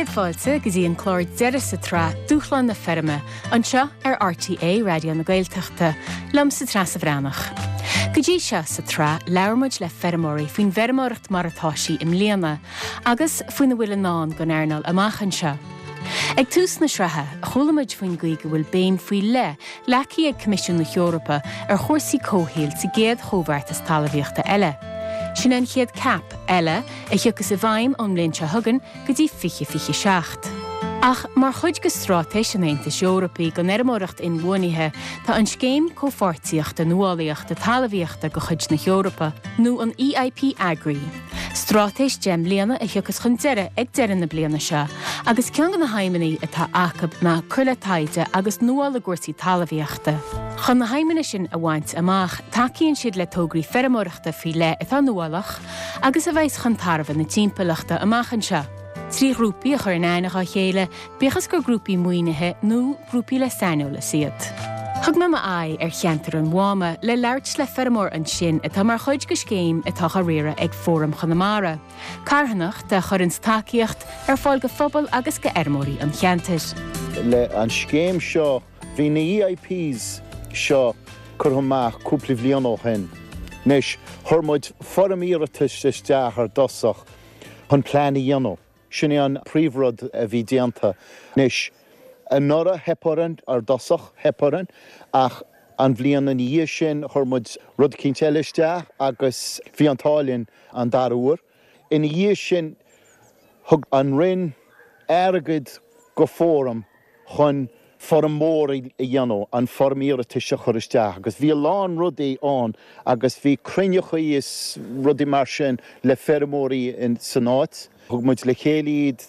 Céad fáilte go dtí an clár deiridh sa tsraith Dúshlán na Feirme, anseo ar RTÉ Raidió na Gaeltachta, liomsa Treasa Bhreathnach. Go dtí seo sa tsraith labhair muid le feirmeoirí faoin bhfeirmeoireacht mar atá sí i mbliana agus faoina bhfuil i ndán don earnáil amach anseo. Ag tús na sraithe, chuala muid faoin gcaoi go bhfuil béim faoi leith leagtha ag Coimisiún na hEorpa ar chúrsaí comhshaoil sa gcéad chomhbheartas talmhaíochta eile. Sin é an chéad CAP eile a thiocfas i bhfeidhm ón mbliain seo chugainn go dtí 2027. Ach mar chuid de straitéis an Aontais Eorpaigh don fheirmeoireacht inbhuanaithe, tá an Scéim Comhpháirtíochta Nuálaíochta Talmhaíochta de chuid na hEorpa, nó an EIP Agri, Straitéis 10 mbliana a thiocfas chun deiridh ag deireadh na bliana seo agus ceann de na haidhmeanna atá acu ná cur le taighde agus nuáil i gcúrsaí talmhaíochta. Chun na haidhmeanna sin a bhaint amach, tacaíonn siad le tograí feirmeoireachta faoi leith atá nuálach agus a bheas chun tairbhe na timpeallachta amach anseo. 3 ghrúpaí a chur in aithne dhá chéile, bíodh is gur grúpaí maoinithe nó grúpaí le saineolas iad. Thug mé m'aghaidh ar cheantar an Mháma le labhairt le feirmeoir ansin atá mar chuid de scéim atá á riaradh ag Fóram Chonamara, carthanacht a chuireanns tacaíocht ar fáil do phobal agus do fheirmeoirí an cheantair. Le an scéim seo, bhí na EIPs seo curtha amach cúpla bhliain ó shin. Anois, chuir muid foirm iarratais isteach ar dtosach chun plean a dhéanamh. Sin é an príomhrud a bhí déanta. Anois, anuraidh theip orainn, ar dtosach, theip orainn, ach an bhliain ina dhiaidh sin chuir muid rud eicínt eile isteach agus bhí an t-ádh linn an dara huair. Ina dhiaidh sin, thug an Roinn airgead go Fóram chun foirm mhór a dhéanamh, an foirm iarratais a chur isteach agus bhí a lán rudaí ann agus bhí cruinneachaí is rudaí mar sin le feirmeoirí san áit. Thug muid le chéile iad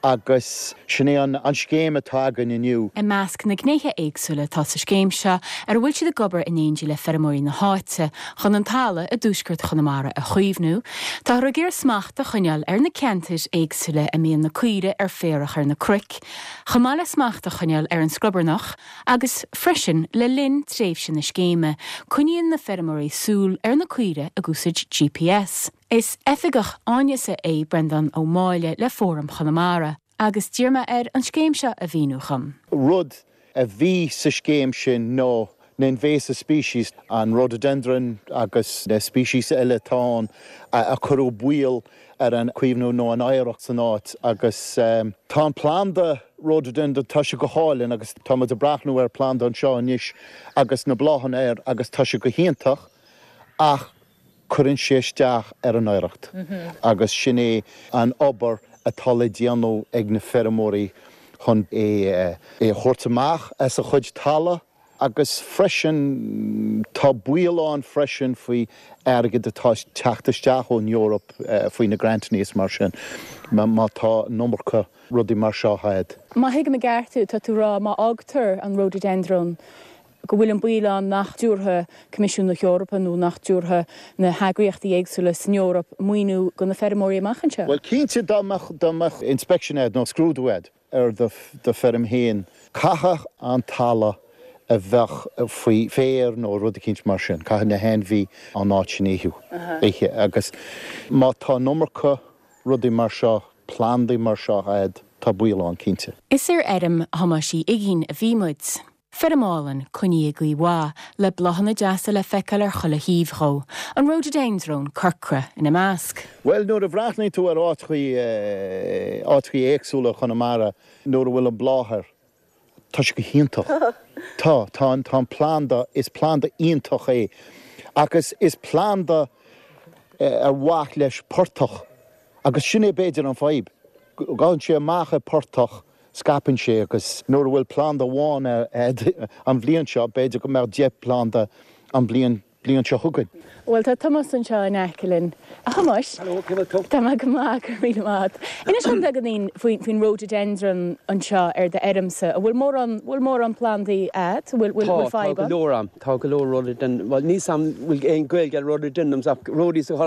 agus sin é an scéim atá againn inniu. I measc na ngnéithe éagsúla atá sa scéim seo, ar a bhfuil siad ag obair in éindí le feirmeoirí na háite chun an talamh i dtuaisceart Chonamara a chaomhnú, táthar ag iarraidh smacht a choinneáil ar na ceantair éagsúla a mbíonn na caoirigh ar féarach ar na cnoic, chomh maith le smacht a choinneáil ar an scrobarnach agus freisin le linn tréimhse na scéime, coinníonn na feirmeoirí súil ar na caoirigh ag úsáid GPS. Is oifigeach áineasa é Breandán Ó Máille le Fóram Chonamara agus d'iarr mé air an scéim seo a mhíniú dhom. Rud a bhí sa scéim sin ná na invasive species, an rhododendron agus na species eile atá ann a chuireadh baol ar an caomhnú nó an oidhreacht san áit agus tá an planda rhododendron, tá sé go hálainn agus tá muid ag breathnú ar planda anseo anois agus na bláthanna air agus tá sé go hiontach ach cuireann sé isteach ar an oidhreacht agus sin é an obair atá le déanamh ag na feirmeoirí chun é a thabhairt amach as a chuid talamh agus freisin tá baol ann freisin faoi airgead atá ag teacht isteach ón Eoraip faoi na grantanna is mar sin má tá an iomarca rudaí mar seo a'd. Má thuigim i gceart thú, tá tú ag rá má fhágtar an rhododendron go bhfuil an baol ann nach dtabharfaidh Coimisiún na hEorpa nó nach dtabharfaidh na heagraíochtaí éagsúla san Eoraip maoiniú do na feirmeoirí amach anseo. Bhuel, cinnte dá mbeadh, dá mbeadh inspection a'd nó scrúdú a'd ar do, do feirm féin, caithfidh an talamh a bheadh faoi féar nó rud eicínt mar sin, caithfidh na hainmhí an áit sin a ithe agus má tá an iomarca rudaí mar seo, plandaí mar seo a'd, tá baol ann cinnte. Is ar fheirm Thomáis Uí Uiginn a bhí muid. Feirm álainn, coinnithe i gcaoi mhaith, le bláthanna deasa le feiceáil ar chuile thaobh dhó, an ródaideindreon corcra ina measc. Bhuel, nuair a bhreathnaíonn tú ar áiteachaí, áiteachaí éagsúla i Chonamara, nuair a bhfuil an bláth air, tá sé go hiontach. Tá, tá an, tá an planda, is planda iontach é. Agus is planda ar mhaith leis portach agus sin é b'fhéidir an fadhb. Gabhann sé amach i portach Scaipeann sé agus nuair a bhfuil planda amháin a'd an bhliain seo, b'fhéidir go mbeadh 10 planda an bhliain bliain seo chugainn. Bhuel, tá Tomás anseo in aice linn. A Thomáis! Hello, cén bhfuil tú? Tá mé go maith, go raibh míle maith agat. Inis dom beagáinín faoin rhododendron anseo ar d'fheirmse. An bhfuil mórán, bhfuil mórán plandaí a'd? An bhfuil, bhfuil Tá, tá fadhb go ann? leor a'm. Tá go leor rhododendron, bhuel níl 's a'm bhfuil aon Gaeilge ar rhododendrons ach rhodies a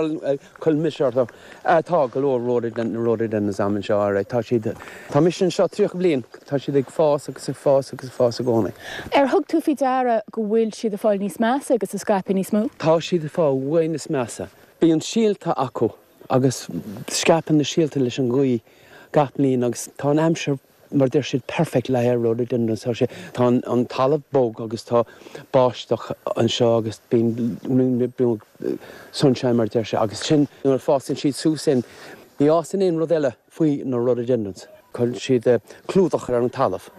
Chuir mise orthu. Tá go leor rhododendrons a'm anseo, alright. Tá siad, tá mise anseo 30 bliain, tá siad ag fás agus ag fás agus ag fás i gcónaí. Ar thug tú faoi deara go bhfuil siad ag fáil níos measa agus ag scaipeadh níos mó? Tá siad ag fáil way níos measa. Bíonn síolta acu agus scaipeann na síolta leis an ghaoth. gach bliain agus tá an aimsir mar deir siad perfect le haghaidh rhododendrons tá sé tá an talamh bog agus tá báisteach anseo agus bíonn sunshine mar deir sé agus sin nuair a fásann siad suas in ní fhásann aon rud eile faoi na rhododendrons. Cuireann siad clúdach ar an talamh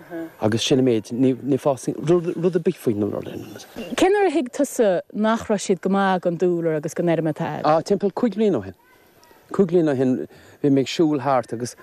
agus sin an méid ní fásann rud ar bith faoi na rhododendrons. Cén uair a thuig tusa nach raibh siad go maith don dúlra agus don fheirm atá agat? Ah timpeall 5 bliana ó shin. 5 bliana ó shin bhí mé ag siúl thart agus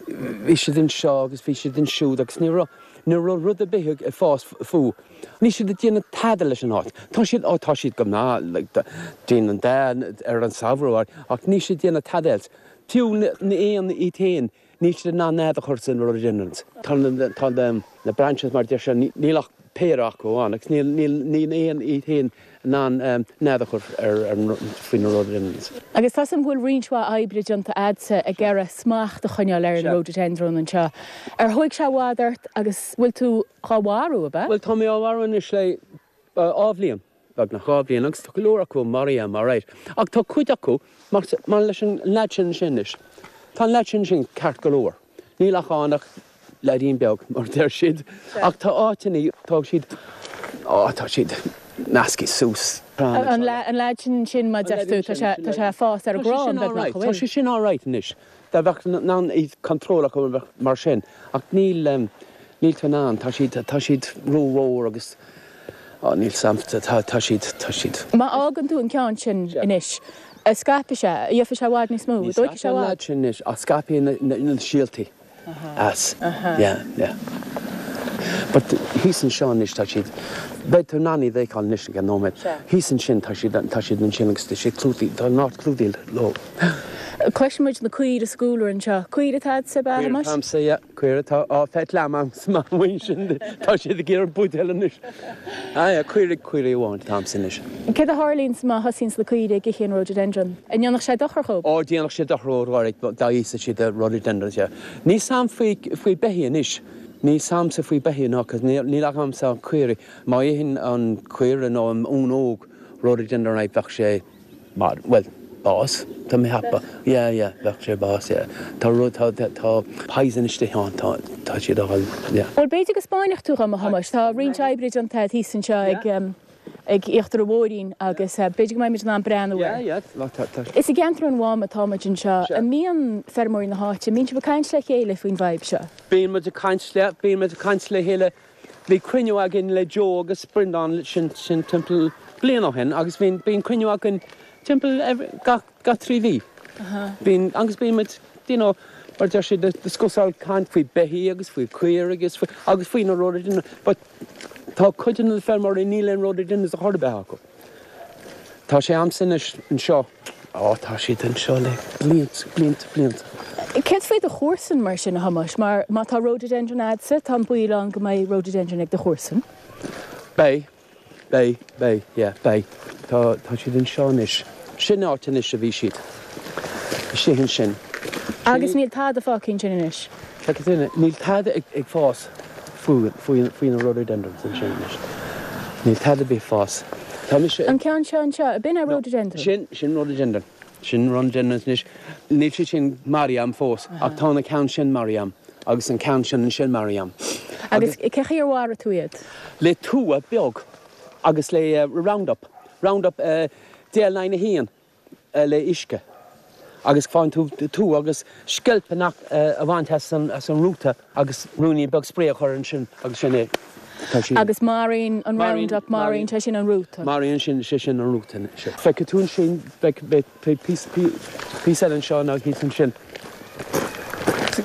bhí siad anseo agus bhí siad ansiúd agus ní raibh, ní raibh rud ar bith ag fás fúthu. Níl siad ag déanamh tada leis an áit. Tá siad, ó tá siad go maith, like, déanann dath ar an samhradh ach níl siad ag déanamh tada else. Fiú na éin iad féin, níl siad in ann nead a chur san rhododendrons. Tá na, tá na branches mar deir sé, níl ach péire acu ann agus níl, níl, níl éin iad féin in ann nead a chur ar, ar, faoi na rhododendrons. Agus tá 'fhios a'm go bhfuil roinnt mhaith oibre déanta a'dsa ag iarraidh smacht a choinneáil ar an rhododendron anseo. Ar thóig sé i bhfad ort agus bhfuil tú dhá mharú, ab ea? Bhuel, tá mé á mharú anois le dhá bhliain, beagnach dhá bhliain, agus tá go leor acu maraithe a'm, alright. Ach tá cuid acu, mar, mar leis an leaid sin ansin anois, tá an leaid sin ansin ceart go leor. Níl ach ann ach leaidín beag, mar a deir siad. Ach tá áiteanna, tá siad, á, tá siad measctha suas. An leaid sin ansin, mar a deir tú, tá sé, tá sé ag fás ar an gcrann, beagnach, an bhfuil? Tá sé sin alright anois. Dá mbeadh in ann iad control acu bheadh mar sin. Ach níl, níl tú in ann, tá siad, tá siad rómhór agus, á, níl 's a'm, tá, tá siad, tá siad. Má fhágann tú an ceann sin anois, scaipfidh sé, gheobhaidh sé i bhfad níos mó, Ní dóigh sé scaipfidh an leaid sin anois, ach scaipfidh na, na, na síoltaí as. Yeah, yeah. But thíos anseo anois tá siad, beidh tú in ann iad a fheiceáil anois i gceann nóiméad. Thíos ansin tá siad, tá siad ansin agus tá siad clúdaithe, tá an áit clúdaithe leo. Cloiseann muid na caoirigh sa gcúlra anseo. Caoirigh atá a'dsa, ab ea, a Thomáis? Caoirigh atá a'msa, yeah. Caoirigh atá á feiceáil a'm sa mhuin sin, tá siad ag iarraidh buidéal anois. Ah yeah, caoirigh, caoirigh amháin atá a'msa anois. Céard a tharlaíonns má thosaíonns na caoirigh ag ithe an rhododendron? An ndéanfadh sé dochar dhób? Ó, déanfadh sé dochar dhóibh, alright, dá íosfadh siad an rhododendron, yeah. Níl 's a'm faoi, faoi beithígh anois. Níl 's a'msa faoi beithígh ná, 'cause níl, níl agamsa ach caoirigh. Má itheann an caora nó an uan óg rhododendron, right, bheadh sé, Mar, bhuel, bás, tá mé ag ceapadh. Yeah, yeah, bheadh sé bás, yeah. Tá rud, tá, tá poison istigh ann, tá, tá siad á fháil, yeah. Bhuel, b'fhéidir go 'spáinfeadh tú dhom, a Thomáis. Tá roinnt oibre déanta agat thíos anseo ag, ag íochtar an bhóithrín agus b'fhéidir go mbeidh muid in ann breathnú air. Yeah, yeah, tá, tá. Is i gceantar an Mhám atá muid anseo. An mbíonn feirmeoirí na háite, an mbíonn sibh ag caint le chéile faoin bhfadhb seo? Bíonn muid ag caint le, bíonn muid ag caint le chéile Bhí cruinniú againn le Joe agus Breandán sin sin timpeall bliain ó shin agus bhíonn bíonn cruinniú againn timpeall every gach gach 3 mhí. Bíonn agus bíonn muid you know mar deir siad discussáil caint faoi beithígh agus faoi caoirigh agus faoi agus faoi na rhododendron but tá cuid de na feirmeoirí níl aon rhododendrons ar chor ar bith acu. Tá sé a'msa anois anseo. Ó, tá siad anseo le blianta, blianta, blianta. Céard faoi do chomharsain mar sin, a Thomáis? Mar má tá rhododendron a'dsa, tá an baol ann go mbeidh rhododendron ag do chomharsain. Beidh, beidh, beidh, yeah, beidh. Tá, tá siad anseo anois. Sin áit anois a bhí siad. Istigh ansin. Agus níl tada fágtha ansin anois? Feicfidh tú, níl tada ag fás faoi, faoi, faoi na rhododendrons ansin anois. Níl tada ar bith ag fás. Tá mise ag. An ceann seo anseo, ab in é rhododendron? Sin, sin rhododendron. Sin rhododendrons anois. Níl siad sin maraithe a'm fós, ach tá na ceann sin maraithe a'm, agus an ceann sin ansin maraithe a'm. Agus cé chaoi ar mharaigh tú iad? Le tua beag agus le Roundup. Roundup DL 9 1. le uisce agus faigheann tú tua agus sceilp a bhaint as an rúta agus ruainnín beag spray a chur ansin agus sin é. Tá sí. Agus maraíonn an Roundup, maraíonn sé sin an rúta. Maraíonn sin sé sin an rúta. Feicfidh tú ansin, beidh píosa píosa eile anseo nó thíos ansin.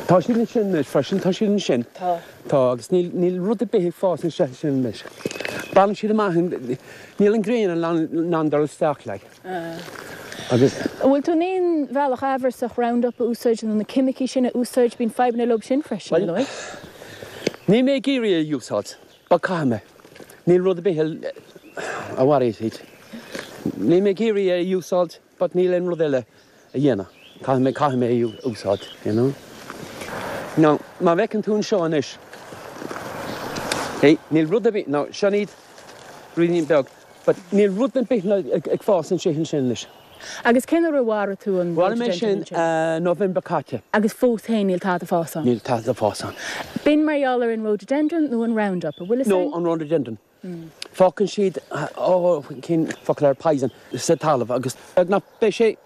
Tá siad ansin anois freisin, tá siad ansin. Tá. Tá, agus níl níl rud ar bith ag fás anseo sin anois. Baineann siad amach, níl an ghrian in ann dul isteach like. Agus. An bhfuil tú in aon bhealach amhrasach Roundup a úsáid nó na ceimicí sin a úsáid? Bíonn fadhbanna leo sin freisin, ar ndóigh. Níl mé ag iarraidh é a úsáid, but caithfidh mé. Níl rud ar bith a mharaíonn iad. Níl mé ag iarraidh é a úsáid, but níl aon rud eile a dhéanamh. Caithfidh mé, caithfidh mé é a úsáid, you know. Now, má bhfeiceann tú anseo anois, hey, níl rud ar bith, now, seo iad, ruainnín beag, But níl rud ar bith ag fás ansin anois. Agus cén uair a mharaigh tú an Mharaigh mé sin November caite. Agus fós féin níl tada ag fás ann? Níl tada ag fás ann. B'in mar gheall ar an rhododendron nó an Roundup, an bhfuil fhios No, an rhododendron. Fágann siad, oh, cén focal air, poison, sa talamh agus beagnach beidh sé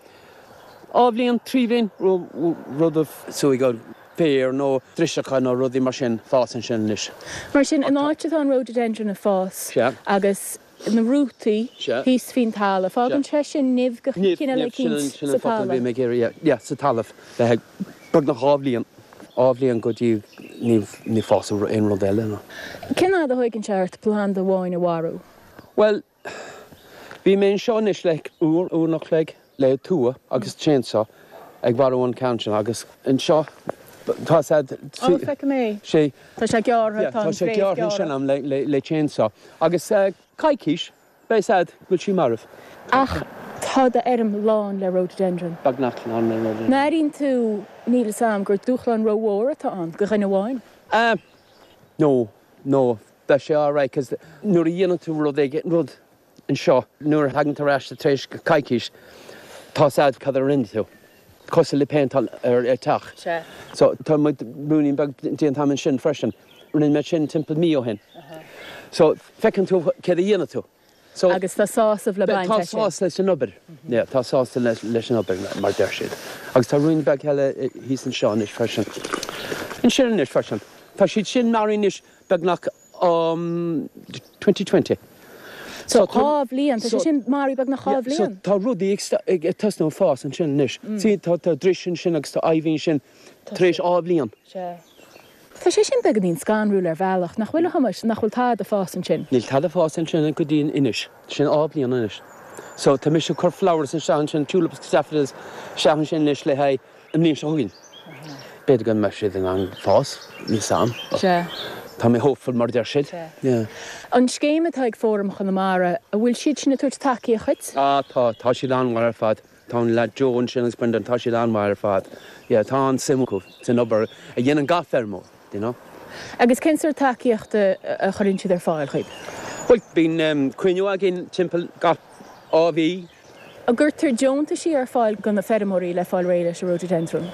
dhá bhliain, trí bhliain, rud a súigh féar nó driseacha nó rudaí mar sin fás ansin anois. Mar sin, an áit atá an rhododendron ag fás agus na rútaí thíos faoin talamh, fágann sé sin nimh de chineál eicínt sa talamh. Sin an focal a bhí mé ag iarraidh, yeah, sa talamh. Le beagnach dhá bhliain, dhá bhliain go dtí ní fásadh aon rud eile ná. Cén fhad a thóigeann sé ort planda amháin a mharú? Bhuel, bhí mé anseo anois le uair, uair an chloig le tua agus chainsaw ag mharú an ceann sin agus anseo tá sé. Ó, feicim é. Sé. Tá sé gearrtha, tá an fhréamh gearrtha. Tá sé gearrtha ansin a'm le le chainsaw agus coicís. Beidh 's a'd go bhfuil sí marbh. Ach tá d'fheirm lán le rhododendron. Beagnach lán le rhododendron. An airíonn tú, níl 'fhios a'm, gur dúshlán rómhór atá ann do dhuine amháin? Eh, no, no, beidh sé alright 'cause nuair a dhéanann tú rud éigin, rud anseo, nuair a thagann tú ar ais tar éis coicís, tá 's a'd cad a rinne tú. Cosúil le péinteáil ar teach. Sea. So tá muid ruainnín beag déanta a'm ansin freisin. Rinne mé sin timpeall mí ó shin. So feiceann tú céard a dhéanann tú. So. Agus tá sásamh le baint as sin. Tá sásamh leis an obair. Yeah, tá sásamh leis an obair, mar deir siad. Agus tá ruainnín beag eile thíos anseo anois freisin. Ansin anois freisin. Tá siad sin maraithe anois beagnach um 2020. So dhá bhliain, tá sé sin maraithe beagnach dhá bhliain. So tá rudaí ag tosnú ag fás ansin anois. See, tá dris ansin agus tá ivy ansin tar éis dhá bhliain. Sea. Tá sé sin beagáinín scanrúil ar bhealach, nach bhfuil a Thomáis, nach bhfuil tada ag fás ansin? Níl tada ag fás ansin go dtí anois. Sin dhá bhliain anois. So tá mise ag cur flowers isteach ansin, tulips agus daffodils isteach ansin anois le haghaidh an mbliain seo chugainn. B'fhéidir go mbeidh siad in ann fás, níl 's a'm. Sea. Tá mé hopeful mar a deir siad. Sea. Yeah. An scéim atá ag Fóram Chonamara, an bhfuil siad sin ag tabhairt tacaíocht dhuit? Ah tá, tá siad an-mhaith ar fad. Tá an leaid Joe ansin agus Brendan, tá siad an-mhaith ar fad. Yeah, tá an-suim acu san obair a dhéanann gach feirmeoir, you know. Agus cén sórt tacaíochta a chuireann siad ar fáil dhaoib? Bhuel, bíonn cruinniú againn timpeall gach dhá mhí. An gcuirtear deontaisí ar fáil do na feirmeoirí le fáil réidh leis an rhododendron?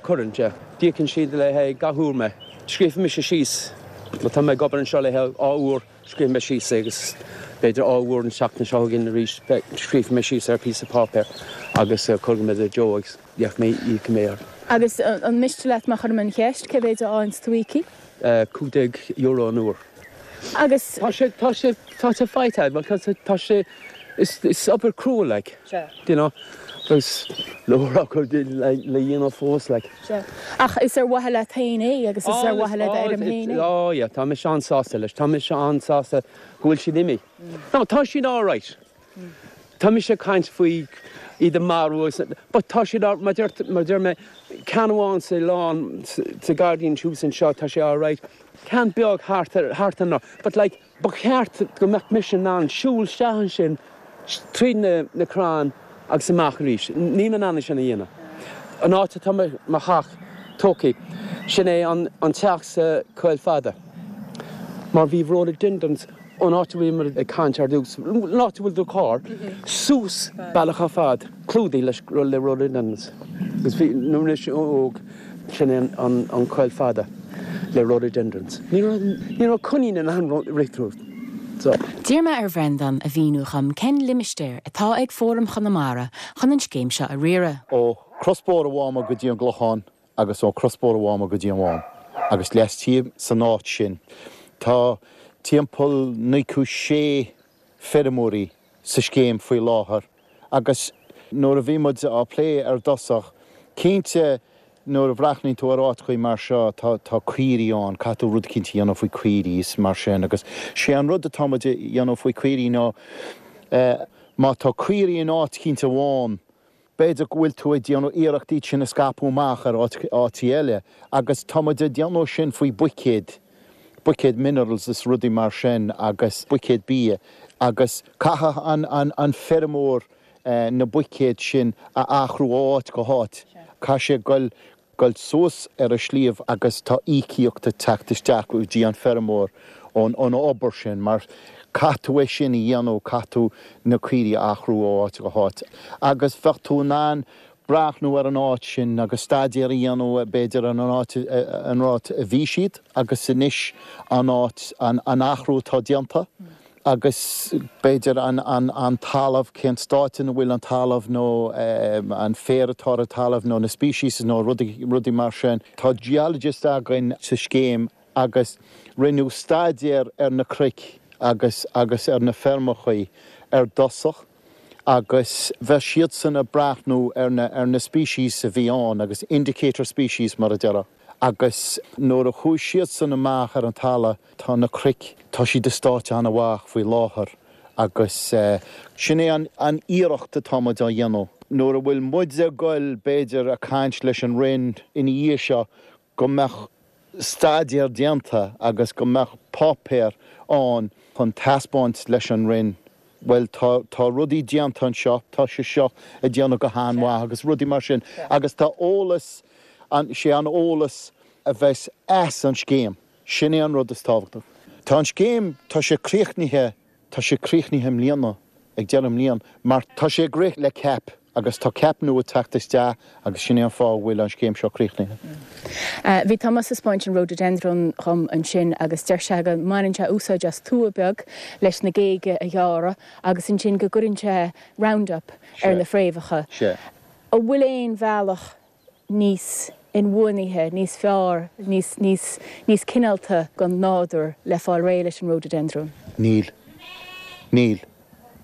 Cuireann, yeah. D'íocann siad le haghaidh gach uair mé. Scríobfaidh mise síos, má tá mé ag obair anseo le haghaidh dhá uair, Scríobfaidh mé síos é agus b'fhéidir dhá uair an tseachtain seo chugainn arís scríobfaidh mé síos ar phíosa páipéir agus cuirfidh mé do Joe agus íocfaidh mé íocfaidh mé air. Agus an miste leat má chuirim an cheist, cé mhéid a fhaigheanns tú íoctha? €15 an uair. Agus. Tá sé, tá sé, tá sé faighte a'd, bhuel tá, tá sé, is, is obair crua like. Sea. Do you know, agus leor acu le, le dhéanamh fós like. Sea. Ach is ar mhaithe leat féin é agus is ar mhaithe le d'fheirm féin é. Oh yeah, tá mise an-sásta leis. Tá mise an-sásta go bhfuil siad imithe. No, tá siad alright. Tá mise ag caint faoi iad a marú agus, but tá siad all, mar deir, mar deir mé, ceann amháin sa lawn, sa gairdín thuas anseo, tá sé alright. Ceann beag thart ar, thart ar, but like, Ba cheart go mbeadh mise in ann siúl isteach ansin tríd na crainn agus amach arís. Níl mé in ann é sin a dhéanamh. An áit atá mo theach tógtha, sin é an teach sa Choill Fada. Mar bhí rhododendrons ón áit a bhfuilimid ag caint ar dtús, an áit a bhfuil do charr, suas bealach ar fad, clúdaithe le rhododendrons. Agus bhí, nuair a bhí mise óg, Sin é an choill fada le rhododendrons. Ní raibh coinín in ann rith tríd. So. D'iarr mé ar Bhreandán a mhíniú dhom cén limistéar atá ag Fóram Chonamara chun an scéim seo a riaradh. Ó Crosbhóthar an Mháma go dtí an gClochán agus ó Crosbhóthar an Mháma go dtí an Mhám agus laistigh san áit sin tá timpeall 96 feirmeoirí sa scéim faoi láthair agus nuair a bhí muid á plé ar dtosach, cinnte nuair a bhreathnaíonn tú ar áiteachaí mar seo tá tá caoirigh ann, caithfidh tú rud eicínt a dhéanamh faoi caoirigh is mar sin agus sé an rud atá muid a dhéanamh faoi caoirigh ná má tá caoirigh in áit eicínt amháin B'fhéidir go bhfuil tú ag déanamh iarracht iad sin a scaipeadh amach ar áiteacha eile agus tá muid ag déanamh sin faoi buicéid, buicéid minerals is rudaí mar sin agus buicéid bia agus caithfidh an feirmeoir na buicéid sin a athrú ó áit go háit. Caithfidh sé goil goil suas ar an sliabh agus tá íocaíocht ag teacht isteach go dtí an feirmeoir ón obair sin mar. Caithfidh tú é sin a dhéanamh, caithfidh tú na caoirigh a athrú ó áit go háit agus bheadh tú in ann breathnú ar an áit sin agus staidéar a dhéanamh b'fhéidir ar an áit an áit a bhí siad agus anois an áit an athrú atá déanta agus b'fhéidir an an an talamh cén stáit ina bhfuil an talamh nó an féar atá ar an talamh nó na species nó rudaí rudaí mar sin. Tá geologist againn sa scéim agus rinneadh staidéar ar na cnoic agus agus ar na feirmeachaí ar dtosach agus bheadh siadsan ag breathnú ar na ar na species a bhí ann agus indicator species mar a déarfá agus nuair a chuaigh siadsan amach ar an talamh tá na cnoic tá siad i stáit an-mhaith faoi láthair agus sin é an an iarracht atá muid á dhéanamh. Nuair a bhfuil muid ag goil b'fhéidir ag caint leis an Roinn ina dhiaidh seo go mbeadh staidéar déanta agus go mbeadh páipéar ann chun taispeáint leis an Roinn, bhuel tá, tá rudaí déanta anseo, tá sé seo ag déanamh go han-mhaith agus rudaí mar sin agus tá eolas, an, sé an eolas a bheas as an scéim, sin é an rud is tábhachtach. Tá an scéim, tá sé críochnaithe Tá sé críochnaithe i mbliana, ag deireadh na bliana, mar tá sé ag rith le CAP agus tá CAP nua ag teacht isteach agus sin é an fáth a bhfuil an scéim seo críochnaithe. Bhí Tomás ag 'spáint an rhododendron dhom ansin agus deir sé go mbaineann sé úsáid as tua beag leis na géaga a ghearradh agus ansin go gcuireann sé Roundup ar na fréamhacha. An bhfuil aon bhealach níos inbhuanaithe, níos fearr, níos, níos, níos cineálta don nádúr le fáil réidh leis an rhododendron? Níl. Níl.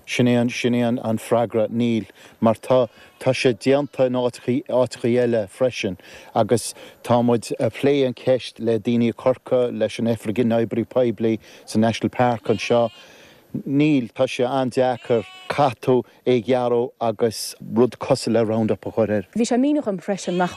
Sin é an, sin é an, an freagra, níl. Mar tá, tá sé déanta in áiteachaí, áiteachaí eile freisin agus tá muid a' plé an cheist le daoine i Corcaigh, leis an Oifig na nOibreacha Poiblí sa National Park anseo. Níl, tá sé an-deacair. Caithfidh tú é a ghearradh agus rud cosúil le Roundup a chur air. Bhí sé ag míniú dhom freisin nach,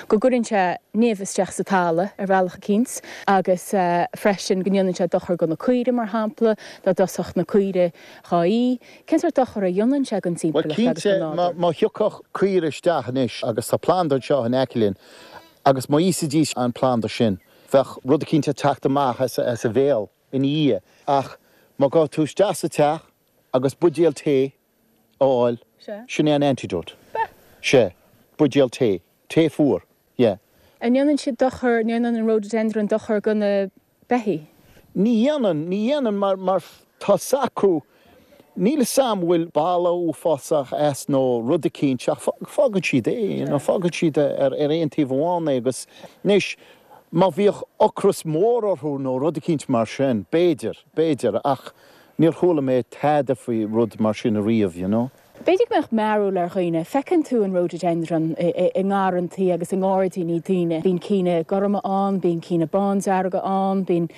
go gcuireann sé nimh isteach sa talamh ar bhealach eicínt agus freisin go ndéanann sé dochar do na caoirigh mar shampla, dá dtosódh na caoirigh dhá ith. Cén sórt dochar a dhéanann sé don Bhuel timpeallacht agus cinnte don nádúr? má thiocfadh caoire isteach anois agus tá planda anseo in aice linn agus má íosfaidís an planda sin bheadh rud eicínt ag teacht amach as a bhéal ina dhiaidh. Ach má ghabh tú isteach sa teach agus buidéal tae a fháil, sin é an antidote. Sea, buidéal tae. Tae fuar. Yeah. An ndéanann siad dochar, an ndéanann an rhododendron dochar do na beithígh? Ní dhéanann, ní dhéanann mar, mar tá 's acu, níl 'fhios a'm bhfuil boladh uafásach as nó rud eicínt ach fágann siad é, you know, fágann siad ar, ar aon taobh amháin é agus anois má bhíodh ocras mór orthu nó rud eicínt mar sin, b'fhéidir, b'fhéidir ach níor chuala mé tada faoi rud mar sin ariamh, you know. B'fhéidir go mbeadh mearbhall ar dhaoine. Feiceann tú an rhododendron i ngarrantaí agus i ngairdíní daoine. Bíonn cinn gorma ann, bíonn cinn bándearga ann, bíonn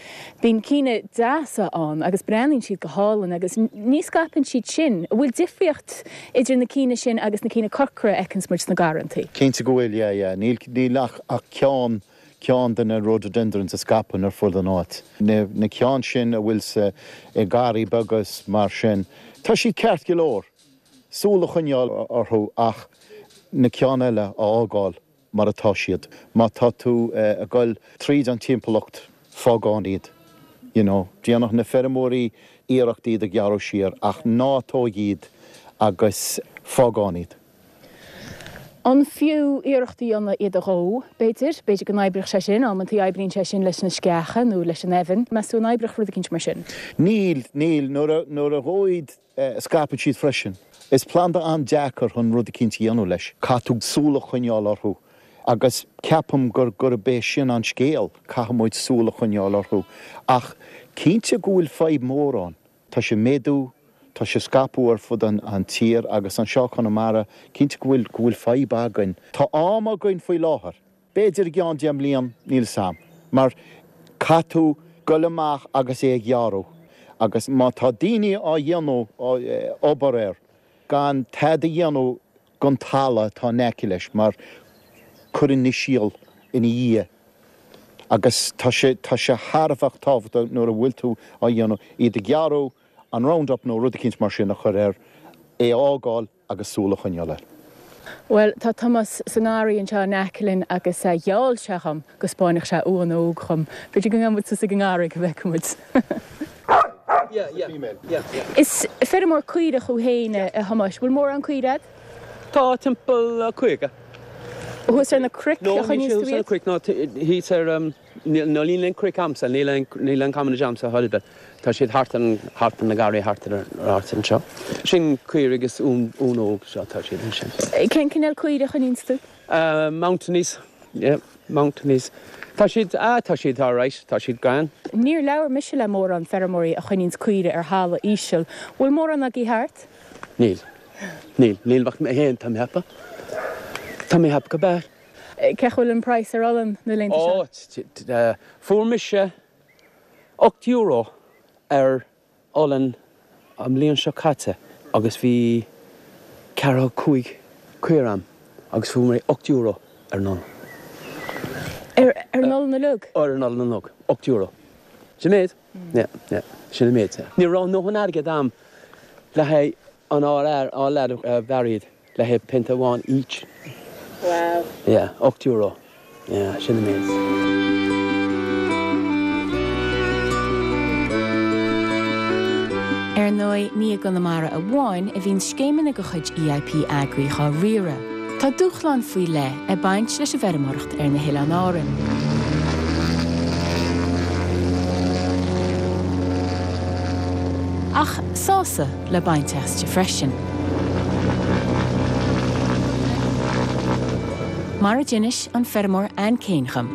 bíonn cinn deasa ann agus breathnaíonn siad go hálainn agus ní scaipeann siad sin. An bhfuil difríocht idir na cinn sin agus na cinn corcra a fheiceanns muid sna garrantaí? Cinnte go bhfuil, yeah, yeah. Níl níl ach ach ceann ceann de na rhododendrons a scaipeann ar fud an áit. Na na ceann sin a bhfuil sa i garraí beaga is mar sin, tá siad ceart go leor, súil a choinneáil orthu ach na ceann eile a fhágáil mar atá siad. Má tá tú ag goil tríd an timpeallacht, fág ann iad. You know, déanadh na feirmeoirí iarracht iad a ghearradh siar ach ná tóig iad agus fág ann iad. An fiú iarracht a dhéanamh iad a dhó, b'fhéidir? B'fhéidir go n-oibreodh sé sin. Amantaí oibríonn sé sin leis na sceacha nó leis an eibheann. Meas tú an oibreodh rud eicínt mar sin? Níl, níl. Nuair a, nuair a dhóigh iad, scaipeann siad freisin. Is planda an-deacair chun rud eicínt a dhéanamh leis. Caithfidh tú súil a choinneáil orthu agus ceapaim gur, gurb é sin an scéal, caithfidh muid súil a choinneáil orthu. Ach cinnte go bhfuil fadhb mhór ann. Tá sé ag méadú, tá sé ag scaipeadh ar fud an tír agus anseo i Conamara, cinnte go bhfuil, go bhfuil fadhb againn. Tá am againn faoi láthair. B'fhéidir i gceann 10 mbliain, níl 'fhios a'm. Mar caithfidh tú goil amach agus é a ghearradh agus má tá daoine á dhéanamh, obair air, gan tada a dhéanamh gon talamh atá in aice leis mar cuireann na síol ina dhiaidh agus tá sé, tá sé thar a bheith tábhachtach nuair a bhfuil tú á dhéanamh, iad a ghearradh, an Roundup nó rud eicínt mar sin a chur air, é a fhágáil agus súil a choinneáil air. Bhuel, tá Tomás sa ngarraí anseo in aice linn agus gheall sé dhom go 'spáinfeadh sé uan óg dhom. B'fhéidir go ngabhfaidh muid suas ag an ngarraí go bhfeicfidh muid. Yeah, yeah. Female. Yeah, yeah. Is feirmeoir caorach thú féin, a Thomáis. Bhfuil mórán caoire a'd? Tá timpeall 50. Thuas ar na cnoic No, a níl choinníos sé tú thuas ar na iad? cnoic, no, thíos ar, níl, no, níl aon chnoic a'msa, níl aon, níl aon commonage a'msa chor ar bith. Tá siad thart ar an, thart ar na garraí, thart ar an áit anseo. Sin caoirigh is uan, uan óg, seo, tá siad ansin. Cén cineál caoire a choinníonns tú? Mountaineys, yeah, Mountaineys. Tá siad, ah, tá siad alright, tá siad grand. Níor labhair mise le mórán feirmeoirí a choinníonns caoire ar thalamh íseal. Bhfuil mórán agaibh thart? Níl. Níl, níl ach mé féin, tá mé ag ceapadh. Tá mé ag ceapadh go b'ea. Cén chaoi a bhfuil an praghas ar olann na laethanta seo? Ó, fuair mise €8 ar olann an bhliain seo caite agus bhí ceathracha cúig caora a'm agus fuair mé €8 ar an olann. Ar an olann uilig? Ar an olann uilig, €8. Sin méid? Yeah, yeah, sin an méid, yeah. Ní raibh a ndóthain airgead a'm le haghaidh an ár fhear, ár leaid a bhearradh iad le haghaidh pionta amháin each. Wow. Yeah, €8. Yeah, sin an méid. Ar ndóigh, ní i gConamara amháin a bhíonn scéimeanna de chuid EIP Agri dhá riaradh. Tá dúshláin faoi leith ag baint leis an bhfeirmeoireacht ar na hOileáin Árann. Ach sásamh le baint aisti freisin. Mar a d'inis an feirmeoir Anne Kane dhom.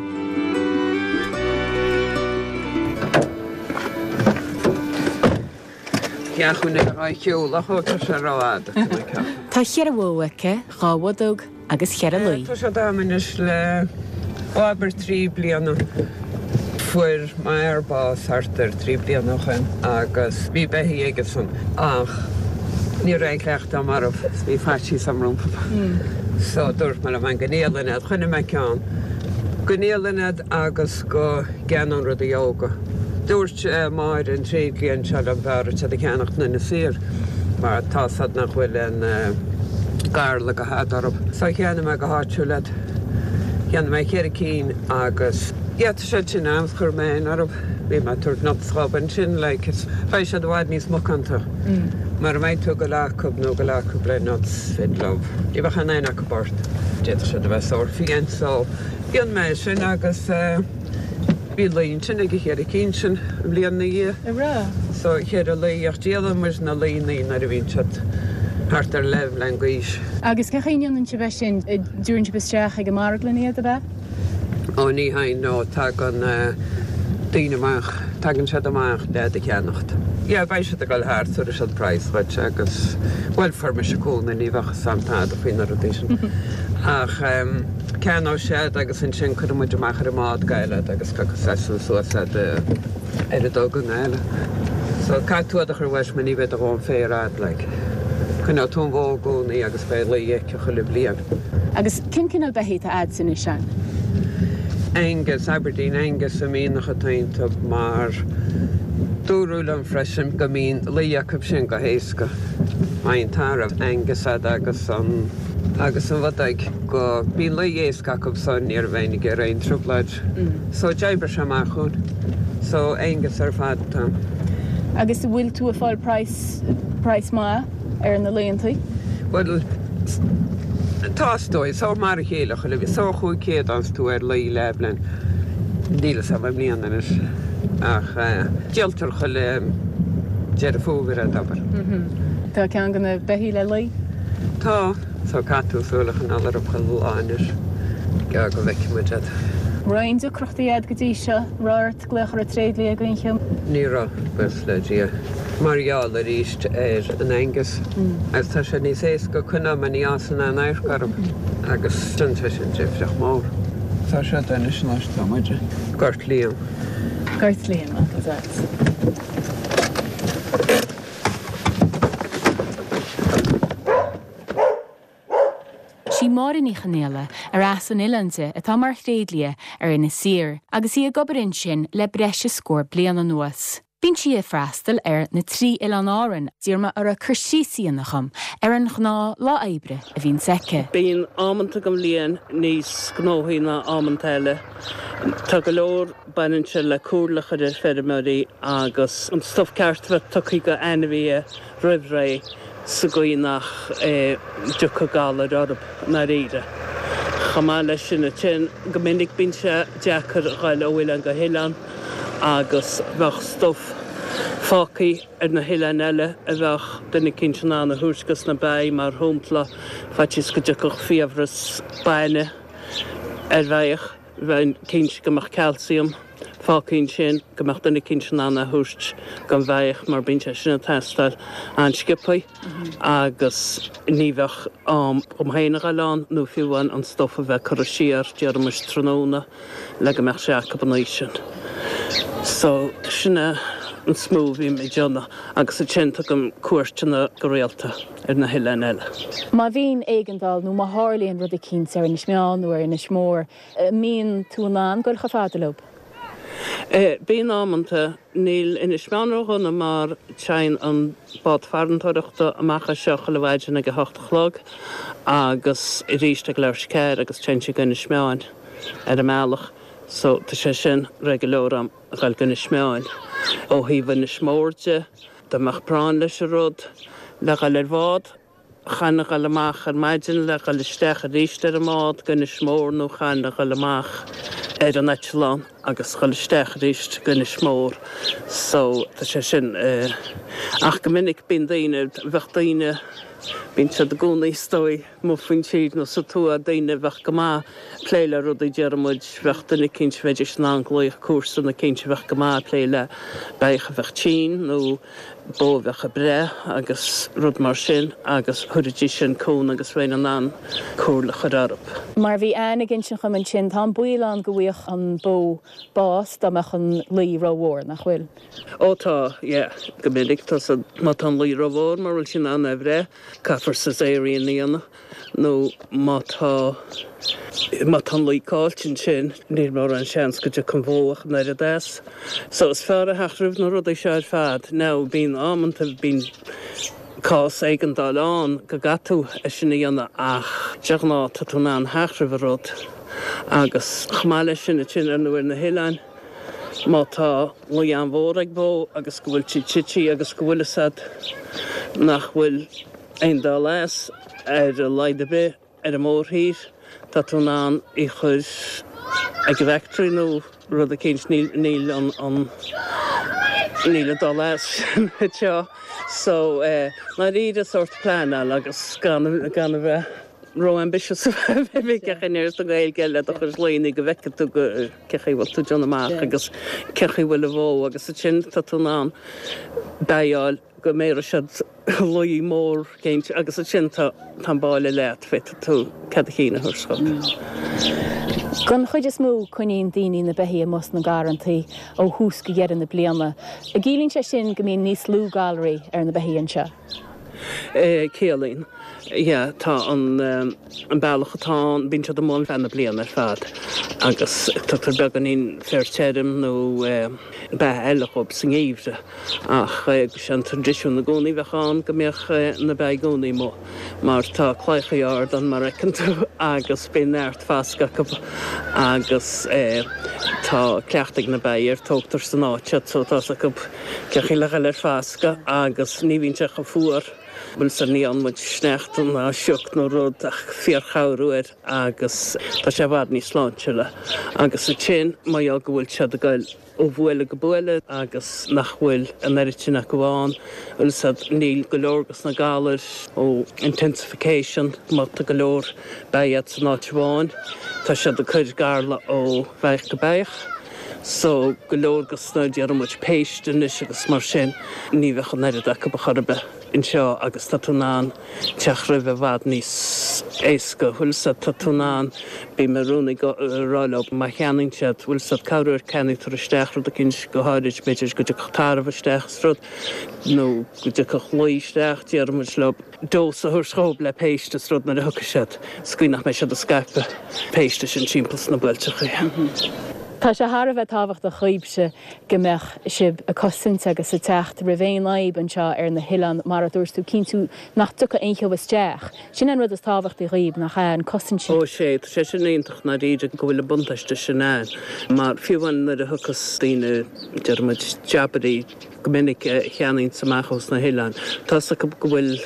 Tá cheithre bhó aici, dhá bhodóg agus cheithre lao. Tá siad a'm anois le abair 3 bliana. Fuair m'fhear bás thart ar 3 bliana ó shoin agus bhí beithígh aigesan ach ní raibh aon chleachtadh a'm orthu is bhí faitíos a'm rompu. So dúirt mé liom féin go ndíolfainn iad. Choinnigh mé ceann. Go ndíolfainn iad agus go gceannóinn rudaí óga. Dúirt Máire an tréidlia anseo liom b'fhearr duit iad a cheannacht in Inis Oírr mar tá 's a'd nach bhfuil an garla go hada orthu. So cheannaigh mé go háitiúil iad. Cheannaigh mé cheithre cinn agus yeah tá siad sin a'm chuir mé in orthu. Bhí mé ag tabhairt nuts dhóibh ansin like is beidh siad i bhfad níos macánta. Mara mbeidh tú ag goil acu nó ag goil acu le nuts féidir leo. Ní bheadh aon aon acu ort. D'fhéadfadh siad a bheith sórt fiáin so dhein mé sin agus eh Bhí lao ansin ag an cheithre cinn sin an bhliain ina dhiaidh. A raibh? So cheithre lao ach díolann muid na laonnaí nuair a bhíonn siad thart ar leathbhliain d'aois. Agus cén chaoi a ndéanann sibh é sin? Dtabharann sibh isteach ag an marglann iad, ab ea? Ó ní hea no, tagann daoine amach, tagann siad amach le iad a cheannacht. Yeah, beidh siad ag dul thart, tabharfaidh siad praghas dhuit agus, bhuel fuair mise cúnamh, ní bheadh fhios a'm tada faoi na rudaí sin. Ach ceannóidh siad agus ansin cuirfidh muid amach ar an mbád go Gaillimh iad agus piocfaidh seisean suas iad ar a dtug i nGaillimh. So caithfidh tú iad a chur uait mar ní bheidh do dhóthain féir a'd like. Coinneoidh tú an bhó i gcónaí agus beidh lao aici chuile bhliain. Agus cén cineál beithígh atá a'dsa anois Ann? Angus, Aberdeen Angus a mbíonn atá iontu mar dúradh liom freisin go mbíonn lao acu sin go héasca. Má bhíonn tarbh Angus a'd agus an agus an bhodóg go mbíonn lao éasca acu so ní bheinn ag iarraidh aon trioblóid. So d'oibrigh sé amach dhúinn. So Angus ar fad atá. Agus an bhfuil tú ag fáil praghas, praghas maith ar na laontaí? Bhuel, tá is dóigh. So mar a chéile chuile bhliain. So 500 fhaigheanns tú ar lao leathbhliain. Níl fhios a'm i mbliana anois. Ach díoltar chuile Deireadh Fómhair iad, abair. Tá ceann de na beithígh le lao? Tá. So caithfidh tú súil a choinneáil orthu chuile lá anois go go bhfeicfidh muid iad. Raibh aon deacrachtaí a'd go dtí seo? Raibh ort glaoch ar an tréidlia ag aon chéim? Ní raibh, buíochas le Dia. Mar gheall arís ar an Angus agus tá sé níos éasca coinneáil mar ní fhásann aon adharc orthu agus déanann sé sin difríocht mór. Tá sé anois anois tá muid. Gort Liam. Gort Liam agus a'd. Sí Máire Ní Chonaola, ar as an oileán di, atá mar thréidlia ar Inis Oírr agus í ag obair ansin le breis is scór bliain anuas. Bíonn sí ag freastal ar na trí Oileán Árann. D'iarr mé uirthi cur síos a dhéanamh dhom ar an ghnáth lá oibre a bhíonns aici. Bíonn amanta den bhliain níos gnóthaí ná amanta eile. Tá go leor, baineann sé le comhairle a chur ar feirmeoirí agus an stuif ceart a bheith tugtha go ainmhithe roimh ré sa gcaoi nach dtiocfadh galair orthu i ndáiríre. Chomh maith leis sin ansin, go minic bíonn sé deacair a ghoil ó oileán go hoileán agus bheadh stuif fágtha ar na hoileáin eile a bheadh duine eicínt in ann a thabhairt dos na beithígh, mar shompla, faitíos go dtiocfadh fiabhras bainne ar bheithíoch, bheinn cinnte go mbeadh calcium fágtha ansin, go mbeadh duine eicínt in ann é a thabhairt don bheithíoch mar bíonn sé sin ag teastáil an-sciobtha agus ní bheadh am dhom féin a ghoil ann nó fiú amháin an stuif a bheith curtha siar, déarfaimis tráthnóna. le go mbeadh sé acu an oíche sin. So, sin é an is mó a bhím ag déanamh agus ansin tugaim cuairteanna go rialta ar na hoileáin eile. Má bhíonn éigeandáil nó má tharlaíonn rud eicínt ar Inis Meáin nó ar Inis Mór, an mbíonn tú in ann goil chomh fada leo? Bíonn amanta. Níl Inis Meáin ródhona mar téann an bád farantóireachta amach as seo chuile mhaidin ag a hocht a chlog agus arís ag leathuair tar éis a ceathair agus téann sí go Inis Meáin ar an mbealach so tá sé sin réidh go leor a'm a ghoil go Inis Meáin. Ó thaobh Inis Mór de, dá mbeadh práinn leis an rud le ghoil ar bhád, Chaithfinn a ghoil amach ar maidin le ghoil isteach arís ar an mbád go Inis Mór nó chaithfinn a ghoil amach ar an eitleán agus ghoil isteach arís go Inis Mór so tá sé sin ach go minic bíonn daoine, bheadh daoine, bíonn siad i gcónaí is dóigh amuigh faoin tír nó sa tuath, daoine a bheadh go maith ag plé le rudaí déarfaidh muid, bheadh duine eicínt bheidís in ann glaoch comharsan eicínt a bheadh go maith ag plé le beithíoch a bheadh tinn nó bó a bheadh ag breith agus rud mar sin agus thabharfaidís sin cúnamh agus bheinn in ann comhairle a chur orthu. Mar a bhí Anne ag insint dhom ansin, tá an baol ann go bhfaigheadh an bó bás dá mbeadh an lao rómhór, nach bhfuil? Ó tá, yeah. Go minic tá sa, má tá an lao rómhór mura bhfuil sí in ann é a bhreith, caithfear caesarean a dhéanamh. nó má tá, má tá an lao caillte ansin, níl mórán seans go dtiocfaidh an bhó ach an oiread as. So is fearr a theacht roimh na rudaí seo ar fad. Now bíonn amanta, bíonn cás éigeandáil ann go gcaithfidh tú é sin a dhéanamh ach de ghnáth tá tú in ann theacht roimh an rud. Agus chomh maith leis sin ansin ar ndóigh ar na hoileáin, má tá lao an-mhór ag bó agus go bhfuil sí tite agus go bhfuil fhios a'd nach bhfuil aon dul as, ar a laghad ar bith, ar an mórthír, tá tú in ann í chur ag an bhfactory nó rud eicínt, níl, níl an, an, níl an dul as sin anseo. So, eh, ndáiríre sórt pleanáil agus gan, gan a bheith ró-ambitious bheith ag caint sa Ghaeilge le do chuid laonna go bhfeicfidh tú go, cén chaoi a bhfuil tú ag déanamh amach agus cén chaoi a bhfuil an bhó agus ansin tá tú in ann beithígh a fháil go mbéarfaidh siad lao mór eicínt agus ansin tá an báile leat, féadfaidh tú cead a chinn a thabhairt dhóibh. Don chuid is mó coinníonn daoine na beithígh amuigh sna garrantaí ó thús go dheireadh na bliana. An gciallaíonn sé sin go mbíonn níos lú galraí ar na beithígh anseo? Ciallaíonn. Yeah, tá an an bealach atá ann, bíonn siad amuigh ar feadh na bliana ar fad agus tugtar beagáinín féar tirim nó beatha eile dhóibh sa ngeimhreadh. Ach sé an traidisiún i gcónaí a bheadh ann go mbeadh na beithígh i gcónaí amuigh mar tá claíochaí ard ann mar a fheiceann tú agus bíonn neart fascadh acu agus tá cleachtadh ag na beithígh air, tógtar san áit iad so tá's acu cén chaoi le dhul ar fascadh agus ní bhíonn sé chomh fuar, bhuel sea ní fhaigheann muid sneachta ná sioc nó rud ach fíorchabhrú air agus tá sé i bhfad níos sláintiúla agus ansin mar gheall go bhfuil siad ag goil ó bhuaile go buaile agus nach bhfuil an oiread sin acu ann, bhfuil 'fhios a'd, níl go leor dos na galair ó intensification má tá go leor beithígh a'd san áit amháin tá siad ag cur garla ó bheithíoch go beithíoch. So, go leor dos na, déarfaidh muid, péist anois agus mar sin, ní bheadh an oiread acu ar chor ar bith anseo agus tá tú in ann teacht roimhe i bhfad níos éasca, bhfuil 'fhios a'd, tá tú in ann, bím i gcónaí ag rá leo má cheannaíonn siad, bhfuil 'fhios a'd, cabhrú ar ceannaigh tar isteach rud eicínt go háirid, b'fhéidir go dtiocfadh tarbh isteach is rud, nó go dtiocfadh lao isteach, déarfaidh muid leo. dose a thabhairt dhóibh le péist is rud nuair a thiocfaidh siad, sa gcaoi nach mbeidh siad ag scaipeadh péiste sin timpeall sna buailteachaí. Tá sé thar a bheith tábhachtach dhaoibhse go mbeadh sibh ag cosaint agus ag teacht roimh aon fhadhb anseo ar na hoileáin, mar a dúirt tú, cinntiú nach dtiocfaidh aon cheo isteach. Sin an rud is tábhachtaí dhaoibh, nach ea, an cosaint sin. Ó sé, tá sé sin iontach i ndáiríre go bhfuil an buntáiste sin ann, mar fiú amháin nuair a thiocfas daoine, déarfaidh muid, jabairí go minic a cheannaíonns amach ós na hoileáin, tá's acu go bhfuil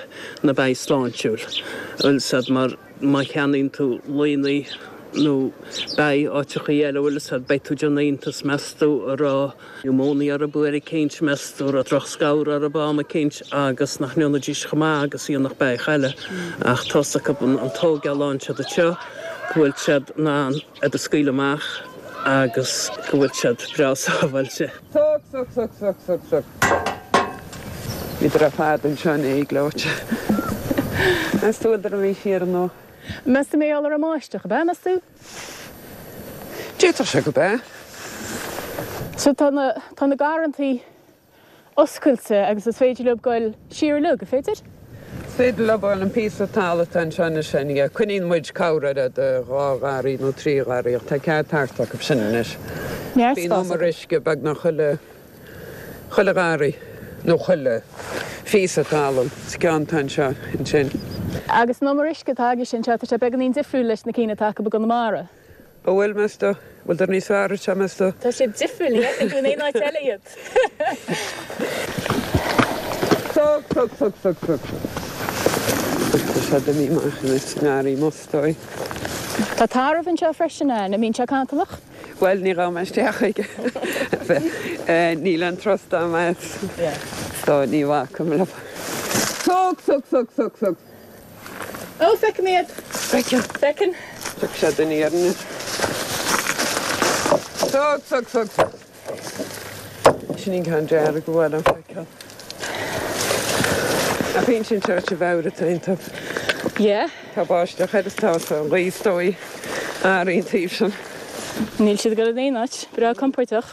na beithígh sláintiúil, bhfuil 's a'd, mar. Má cheannaíonn tú laonna nó beithígh áiteachaí eile, bhfuil 'fhios a'd, beidh tú ag déanamh iontas, meas tú an raibh niúmóinia orthu uair eicínt, meas tú an raibh drochscamhar orthu am eicínt agus nach ndéanfaidís chomh maith agus a dhéanfadh beithíoch eile. Ach tá's acu an tógáil a fhaigheann siad anseo, go bhfuil siad in ann iad a scaoileadh amach agus go bhfuil siad breá sábháilte. Suc, suc, suc, suc, suc, suc. Bhíodar ar fad anseo inné gleoite. Meas tú bhfuileadar imithe siar nó? Meas tú mar gheall ar an mbáisteach, ab ea, meas tú? D'fhéadfadh sé go b'ea. So tá na, tá na garrantaí oscailte agus is féidir leo goil siar uilig, an féidir? Is féidir leo an píosa talaimh atá anseo anois féin, yeah. Coinníonn muid corr de dhá gharraí nó trí gharraí ach tá cead thart acu sin anois. Neart Bíonn spás umar acu. uisce beagnach chuile, chuile gharraí nó chuile phíosa talún sa gceann atá anseo ansin. Agus an umar uisce atá agaibhse anseo, tá sé beagáinín difriúil leis na cinn atá acu i gConamara. An bhfuil, meas tú? Bhfuileadar níos fearr anseo, meas tú? Tá siad difriúil, ní fheiceann tú in aon áit eile iad. Suc, suc, suc, suc, suc. Tá siad imithe amach anois sa ngarraí amuigh, is dóigh. Tá tarbh anseo freisin, an mbíonn sé cantalach? Bhuel, ní ghabhfaidh mé isteach chuige. Níl an trust a'm as. So ní bhacaim leo. Suc, suc, suc, suc, suc. Ó, feicim iad. Feiceann. Feiceann. Tiocfaidh siad aniar anois. Suc, suc, suc, suc. Sin an ceann dearg a bhfuil an feiceáil. Ach bíonn sin seo sa bhfeabhra atá iontu. Yeah. Tá báisteach air is tá sa ghaoth is dóigh. Ar an taobh sin. Níl siad ag dul in aon áit. Breá compordach.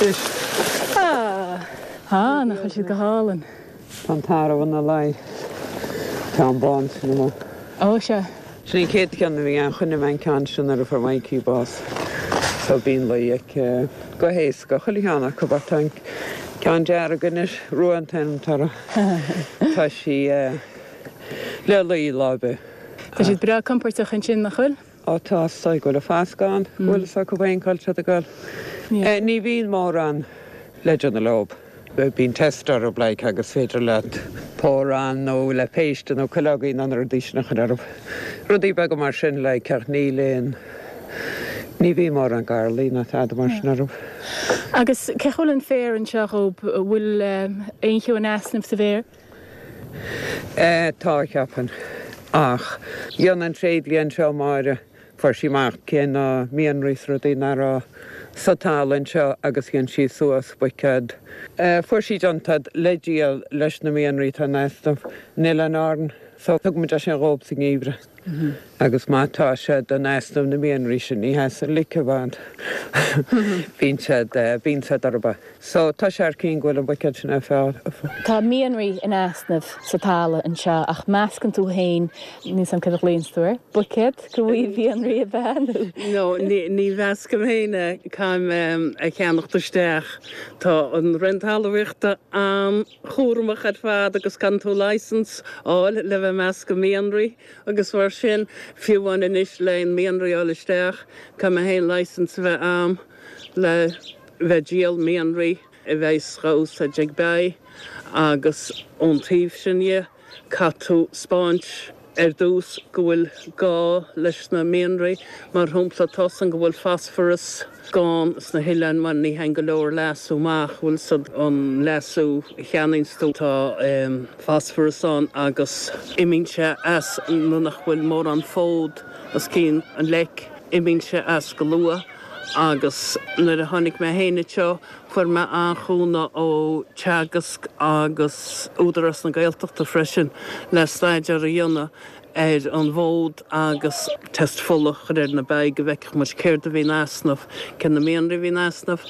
Anois. Ah. Ah, nach bhfuil siad go hálainn. Tá an tarbh ina luí. Tá an bán sin amuigh. Ó, sea. Sin an chéad cheann a bhí ann. Choinnigh mé an ceann sin nuair a fuair Mikey bás. So bíonn luí aici go héasca, chuile cheann acu ach tá an ceann dearg anois, Rua an t-ainm atá uirthi. Tá sí le luí lá ar bith. Tá siad breá compordach ansin, nach bhfuil? Ó tá, is dóigh go bhfuil an fascadh ann, go bhfuil fhios acu féin cá bhfuil siad ag dul. Ní bhíonn mórán le déanamh leob. Bíonn test orthu like agus féidir leat pour-on nó le péiste nó cuileogaí nó na rudaí sin a chur orthu. Rudaí beaga mar sin like ach níl aon, ní bhíonn mórán garlaí ná tada mar sin orthu. Agus cén chaoi a bhfuil an féar anseo dhób, bhfuil aon cheo in easnamh sa bhféar? Tá, cheapfainn. Ach dhein an tréidlia anseo, Máire, fuair sí amach cé na mianraí is rudaí nach raibh sa talamh anseo agus dhein sí suas buicéad. Fuair sí déanta le díol leis na mianraí atá in easnamh in Oileáin Árann. So thug muid é sin dhób sa ngeimhreadh. Agus má tá siad in easnamh na mianraí sin, ní sheasann lice i bhfad. Bíonn siad, bíonn siad orthu. So, tá sé ar cinn go bhfuil an buicéad sin ar fáil. Tá mianraí in easnamh sa talamh anseo ach meascann tú féin, níl 's a'm céard a ghlaonns tú air, buicéad de mhianraí ab ea nó? No, ní mheascaim féin é, caithim é a cheannacht isteach. Tá an Roinn Talmhaíochta an-chúramach ar fad agus caitheann tú licence a fháil le bheith ag meascadh mianraí agus mar sin, fiú amháin anois le aon mianraí a fháil isteach, caithfidh mé féin licence a bheith a'm le bheith ag díol mianraí a bheas dhá úsáid ag beithígh agus ón taobh sin dhe caithfidh tú 'spáint ar dtús go bhfuil gá leis na mianraí. Mar shampla tá's a'm go bhfuil phosphorus gann sna hoileáin mar ní théann go leor leasú amach, bhfuil 's a'd an leasú a cheannaíonns tú tá phosphorus ann agus imíonn sé as nuair nach bhfuil mórán fód os cionn an leic, imíonn sé as go luath. Agus nuair a tháinig mé féin anseo, fuair mé an-chúnamh ó Teagasc agus Údarás na Gaeltachta freisin le staidéar a dhéanamh ar an bhfód agus test fola a chur ar na beithígh go bhfeicfeadh muid céard a bhí in easnamh, cé na mianraí a bhí in easnamh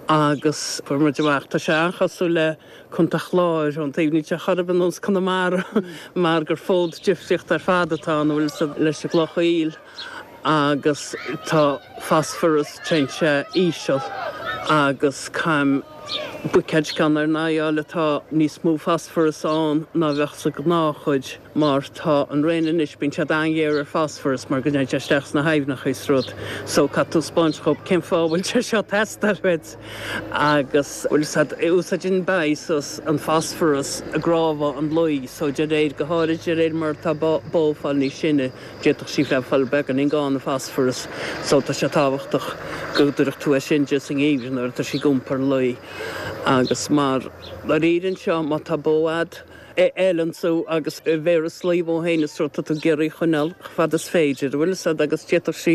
agus fuair muid amach, tá sé an-chosúil le Contae Chláir ón taobh, níl sé chor ar bith ar nós Conamara mar gur fód difríocht ar fad atá ann, bhfuil 's a'd, leis an gcloch aoil. Agus tá fosfaras, téann sé íseal agus caithim buicéad ceann ar n-aghaidh a fháil atá níos mó fosfaras ann ná bheadh sa ghnáthchuid mar tá an Roinn anois, bíonn siad an-ghéar ar fosfaras mar go dtéann sé isteach sna haibhneacha is rud so caithfidh tú 'spáint dhób cén fáth a bhfuil sé seo ag teastáil uait agus bhfuil fhios a'd, úsáideann beithígh suas an fosfaras i gcnámha an lao so de réir, go háirid de réir mar atá bó ag fáil níos sine. D'fhéadfadh sí bheith ag fáil beagáinín gann ar phosfaras so tá sé tábhachtach go dtabharfadh tú é sin di sa ngeimhreadh nuair atá sí ag iompar lao agus mar dáiríre anseo má tá bó a'd a fheileann tú agus a bhéaras lao dhó féin is rud tá tú ag iarraidh a choinneáil chomh fada is féidir, an bhfuil fhios a'd agus d'fhéadfadh sí,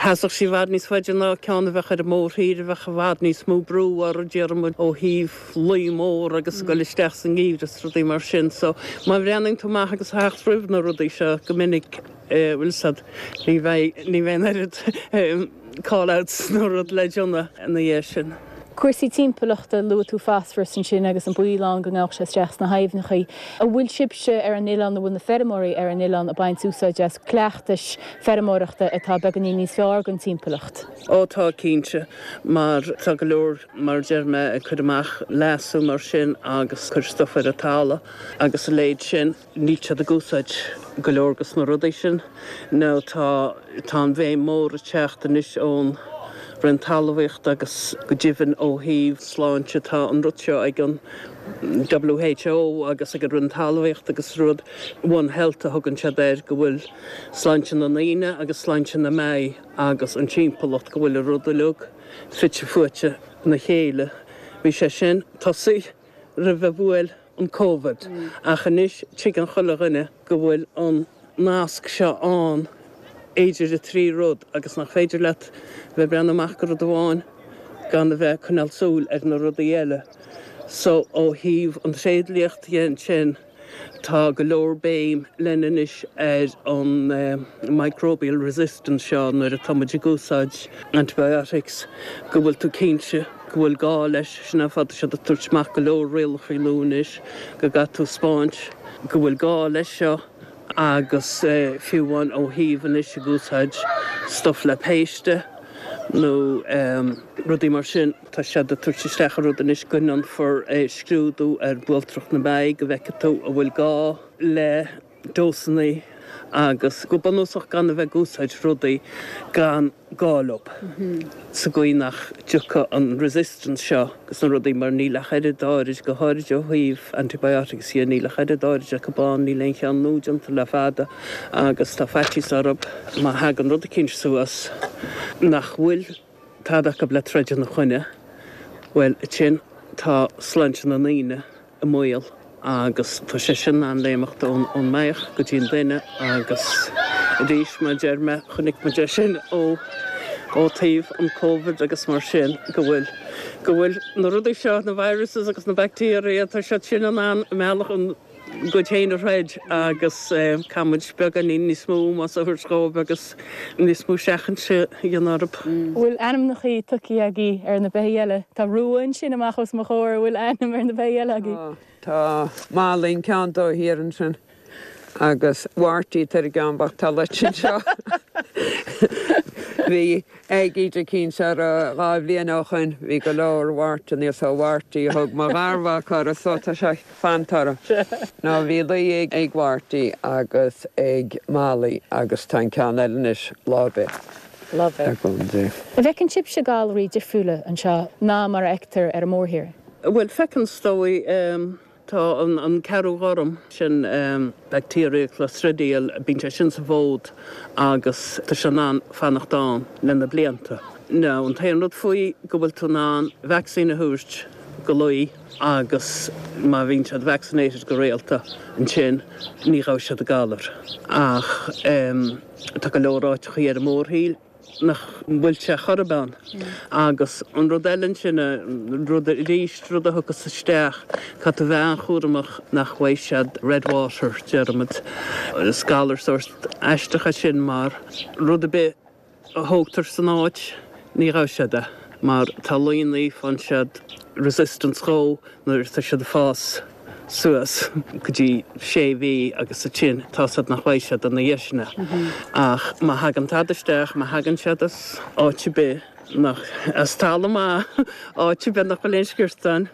sheasfadh sí i bhfad níos faide ná ceann a bheadh ar an mórthír a bheadh i bhfad níos mó brú orthu déarfaidh muid ó thaobh lao mór agus ag dul isteach sa ngeimhreadh is rudaí mar sin. So, má bhreathnaíonn tú amach agus theacht roimh na rudaí seo go minic, bhfuil fhios a'd, ní bheidh, ní bheidh an oiread call outs nó rud le déanamh ina dhiaidh sin. Cúrsaí timpeallachta, luaigh tú fosfaras ansin agus an baol ann go ngabhadh sé isteach sna haibhneacha. An bhfuil sibhse ar an oileán, an bhfuil na feirmeoirí ar an oileán ag baint úsáid as cleachtais feirmeoireachta atá beagáinín níos fearr don timpeallacht? Ó tá, cinnte, mar tá go leor mar a deir mé, ag cur amach leasú mar sin agus cur stuif ar an talamh agus a leithéid sin, níl siad ag úsáid go leor dos na rudaí sin. Now tá, tá an bhéim mór ag teacht anois ón Roinn Talmhaíochta agus go deimhin ó thaobh sláinte tá an rud seo ag an WHO agus ag an Roinn Talmhaíochta agus rud One Health a thugann siad air go bhfuil sláinte na ndaoine agus sláinte na mbeithígh agus an timpeallacht go bhfuil an rud uilig fite fuaite ina chéile. Bhí sé sin tosaithe roimh a bhuail an Covid ach anois tuigeann chuile dhuine go bhfuil an nasc seo ann idir an trí rud agus nach féidir leat bheith ag breathnú amach go rud amháin gan a bheith ag coinneáil súil ar na rudaí eile. So ó thaobh an tréidliacht dhe ansin, Tá go leor béim lena anois ar an microbial resistance seo nuair atá muid ag úsáid antibiotics, go bhfuil tú cinnte go bhfuil gá leis. Sin an fáth tá siad ag tabhairt amach go leor rialacha nua anois go gcaithfidh tú 'spáint go bhfuil gá leis seo agus fiú amháin ó thaobh anois ag úsáid stuff le péiste nó rudaí mar sin. Tá siad ag tabhairt isteach an rud anois go ndéanfar scrúdú ar bhualtrach na mbeithígh go bhfeicfidh tú an bhfuil gá le dósanna agus go bunúsach gan a bheith ag úsáid rudaí gan gá leo sa gcaoi nach dtiocfaidh an resistance seo agus na rudaí mar níl ach oiread áirid, go háirid ó thaobh antibiotics dhe, níl ach oiread áirid acu ann, níl aon cheann nua déanta le fada agus tá faitíos orthu má thagann rud eicínt suas nach bhfuil tada acu le troid ina choinne, bhuel, ansin tá sláinte na ndaoine i mbaol agus tá sé sin in ann léimeacht ón mbeithíoch go dtí an duine agus arís, mar a deir mé, chonaic muid é sin ó ó taobh an Covid agus mar sin go bhfuil go bhfuil na rudaí seo, na viruses agus na bacteria, tá siad sin in ann a mbealach a gcuid féin a throid agus caithfidh muid beagáinín níos mó ómós a thabhairt dhóibh agus níos mó seachainte a dhéanamh orthu. An bhfuil ainmneachaí tugtha agaibh ar na beithígh eile? Tá Rua ansin amach os mo chomhair, an bhfuil ainm ar na beithígh eile agaibh? Tá, tá Molly an ceann dó thiar ansin agus Mharty tar an gceann bocht tá loite anseo. Bhí aicíd eicínt orthu 2 bhliain ó shoin, bhí go leor wartanna so Mharty a thug mo gharmhac orthu so tá sé fanta orthu. Nó bhí lao ag Mharty agus ag Molly agus tá an ceann eile anois lá ar bith. Lá ar bith. An bhfeiceann sibhse galraí difriúla anseo ná mar a fheictear ar an mórthír? Bhuel, feiceann is dóigh. Tá an ceathrú ghorm sin, bacteria clostridial, bíonn sé sin sa bhfód agus tá sé in ann fanacht ann le na blianta. Now, an t-aon rud faoi go bhfuil tú in ann vacsaín a thabhairt go lao agus má bhíonn siad vaccinated go rialta ansin ní ghabhfaidh siad an galar. Ach tá go leor áiteachaí ar an mórthír nach bhfuil sé chor ar bith ann. Agus an rud eile ansin, rud arís, rud a thiocfas isteach, caithfidh tú bheith an-chúramach nach bhfaighidh siad red water, déarfaimid. Is galar sórt aisteach é sin mar rud ar bith a thógtar san áit, ní ghabhfaidh siad é mar tá laonna, faigheann siad resistance dhó nuair atá siad ag fás. suas go dtí sé mhí agus ansin tá 's a'd nach bhfaighidh siad ina dhiaidh sin é. Ach má thagann tada isteach, má thagann siad as áit ar bith nach, as talamh maith, áit ar bith nach bhfuil aon sciortáin,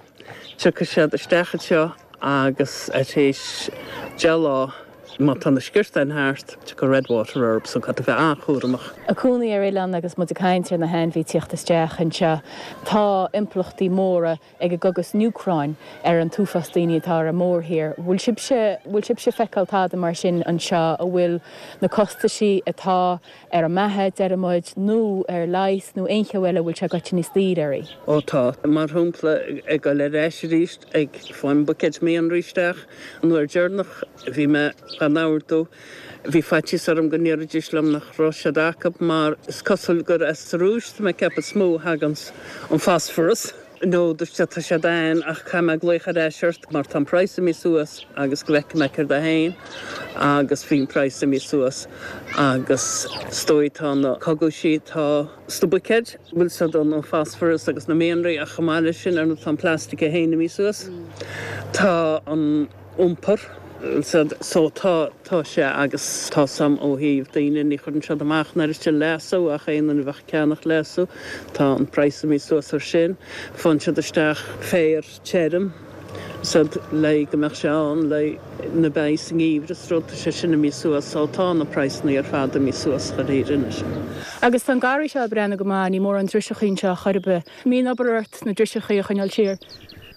tiocfaidh siad isteach anseo agus tar éis 10 lá, má tá na sciortáin thart, tiocfaidh red water orthu so caithfidh tú bheith an-chúramach. Ag cónaí ar oileán agus muid ag caint ar na hainmhithe tíocht isteach anseo, tá impleachtaí móra ag an gcogadh san Úcráin ar an t-uafás daoine atá ar an mórthír. Bhfuil sibhse, bhfuil sibhse ag feiceáil tada mar sin anseo, a bhfuil na costaisí atá ar an mbeatha, deir muid, nó ar leigheas nó aon cheo eile, bhfuil sé goite níos daoire oraibh? Ó tá. Mar shampla, ag dul ar ais arís ag fáil buicéid mianraí isteach, an uair deireanach a bhí mé gan ordú, Bhí faitíos orm go ndéarfaidís liom nach raibh siad acu mar is cosúil gur as an Rúis, tá mé ag ceapadh, is mó a thaganns an phosphorus. No, dúirt siad, tá siad ann ach caithfidh mé glaoch ar ais ort mar tá an praghas imithe suas agus go bhfeicfidh mé céard é féin agus bhí an praghas imithe suas agus is dóigh tá na cogaisí, tá sna buicéid, bhfuil siad an phosphorus agus na mianraí ach chomh maith leis sin ar ndóigh tá an plastic é féin imithe suas, tá an. iompar. So tá, tá sé agus tá 's a'm ó thaobh daoine, ní chuireann siad amach an oiread sin leasú ach aon duine a bheadh ag ceannach leasú, tá an praghas imithe suas ar sin. Faigheann siad isteach féar tirim so le go mbeadh sé ann le na beithígh sa ngeimhreadh is rud, tá sé sin imithe suas so tá na praghsanna ar fad imithe suas chun fhírinne. Agus tá an garraí seo ag breathnú go maith, ní mórán driseachaí anseo chor ar bith. An mbíonn obair ort na driseachaí a choinneáil siar?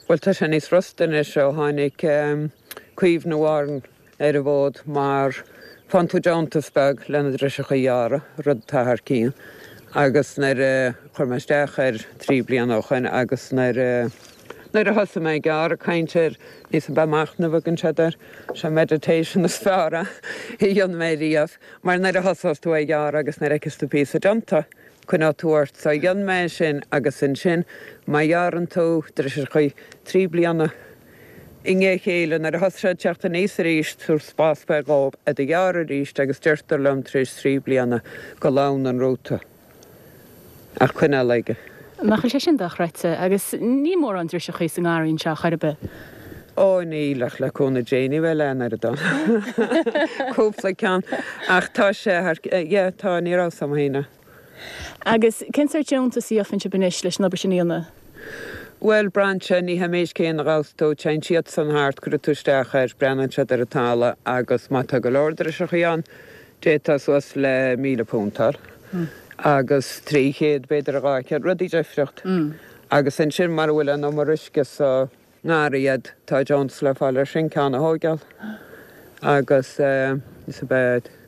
Bhuel, tá sé níos frusta anois ó tháinig Caomhnú Árann ar an bhfód mar faigheann tú deontas beag le na driseacha a ghearradh, rud atá thar cionn. Agus nuair a chuir mé isteach air trí bliana ó shoin agus nuair a nuair a thosaigh mé ag gearradh, caint ar níos mó machnamh a thugann siad air, sé meditation is fearr a dhein mé riamh mar nuair a thosós tú ag gearradh agus nuair a fheiceas tú píosa déanta, Coinneoidh tú ort. So dhein mé é sin agus ansin má ghearrann tú driseachaí 3 bliana i ndiaidh a chéile nuair a thosaigh siad ag teacht aníos arís tabhair spás beag dhóibh iad a ghearradh arís agus deirtear liom tar éis 3 bliana go leánn an rúta ach coinneáil aige. Nach bhfuil sé sin dochreidte? Agus níl mórán driseachaí sa ngarraí anseo chor ar bith. Ó níl ach le cúnamh Dé ní bheidh leath an oiread ann. Cúpla ceann. Ach tá sé thar, yeah, tá, ní raibh 's a'm féin é. Agus cén sórt deontas a gheofan sibh anois leis an obair sin a dhéanamh? Bhuel, braitheann sé, ní hé an méid céanna a ghabhfas tú, téann siadsan thart, cuirfidh tú isteach air, breathnaíonn siad ar an talamh agus má tá go leor driseachaí ann, d'fhéadfá suas le £1,000 a fháil agus 300 b'fhéidir a 200, rudaí difriocht. Agus ansin mara bhfuil an umar uisce sa ngarraí a'd, tá deontas le fáil ar sin, ceann a thóigeáil agus is ab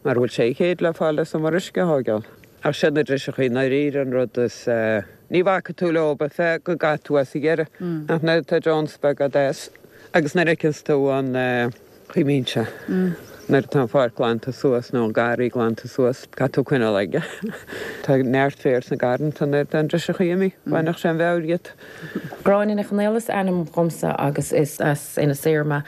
mara bhfuil 600 le fáil as umar uisce a thóigeáil. Ach siad na driseachaí i ndáiríre an rud is, ní bhacfaidh tú leo feadh go gcaithfidh tú as a dheireadh ach nuair atá deontas beag a'd as agus nuair a fheiceanns tú an chaoi a mbíonn sé nuair atá an pháirc glanta suas nó an garraí glanta suas, caithfidh tú coinneáil aige. Tá neart féir sna garranta nuair atá an driseachaí imithe, bhainfeadh sé an mheabhair dhíot. Gráinne Nic Chonaill is ainm dhomsa agus is as Inis Oírr mé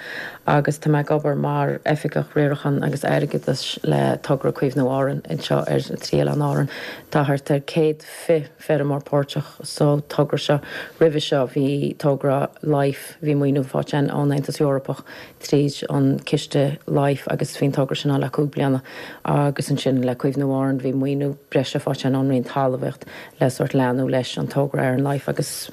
agus tá mé ag obair mar Oifigeach Riaracháin agus Airgeadais le Togra Caomhnú Árann anseo ar na trí Oileán Árann. Tá thart ar 120 feirmeoir páirteach sa togra seo. Roimhe seo bhí togra Life, bhí maoiniú faighte againn ón Aontas Eorpach tríd an ciste Life agus bhí an togra sin ann le 5 bliana agus ansin le Caomhnú Árann bhí maoiniú breise faighte againn ón Roinn Talmhaíocht le sórt leanúint leis an togra ar an Life agus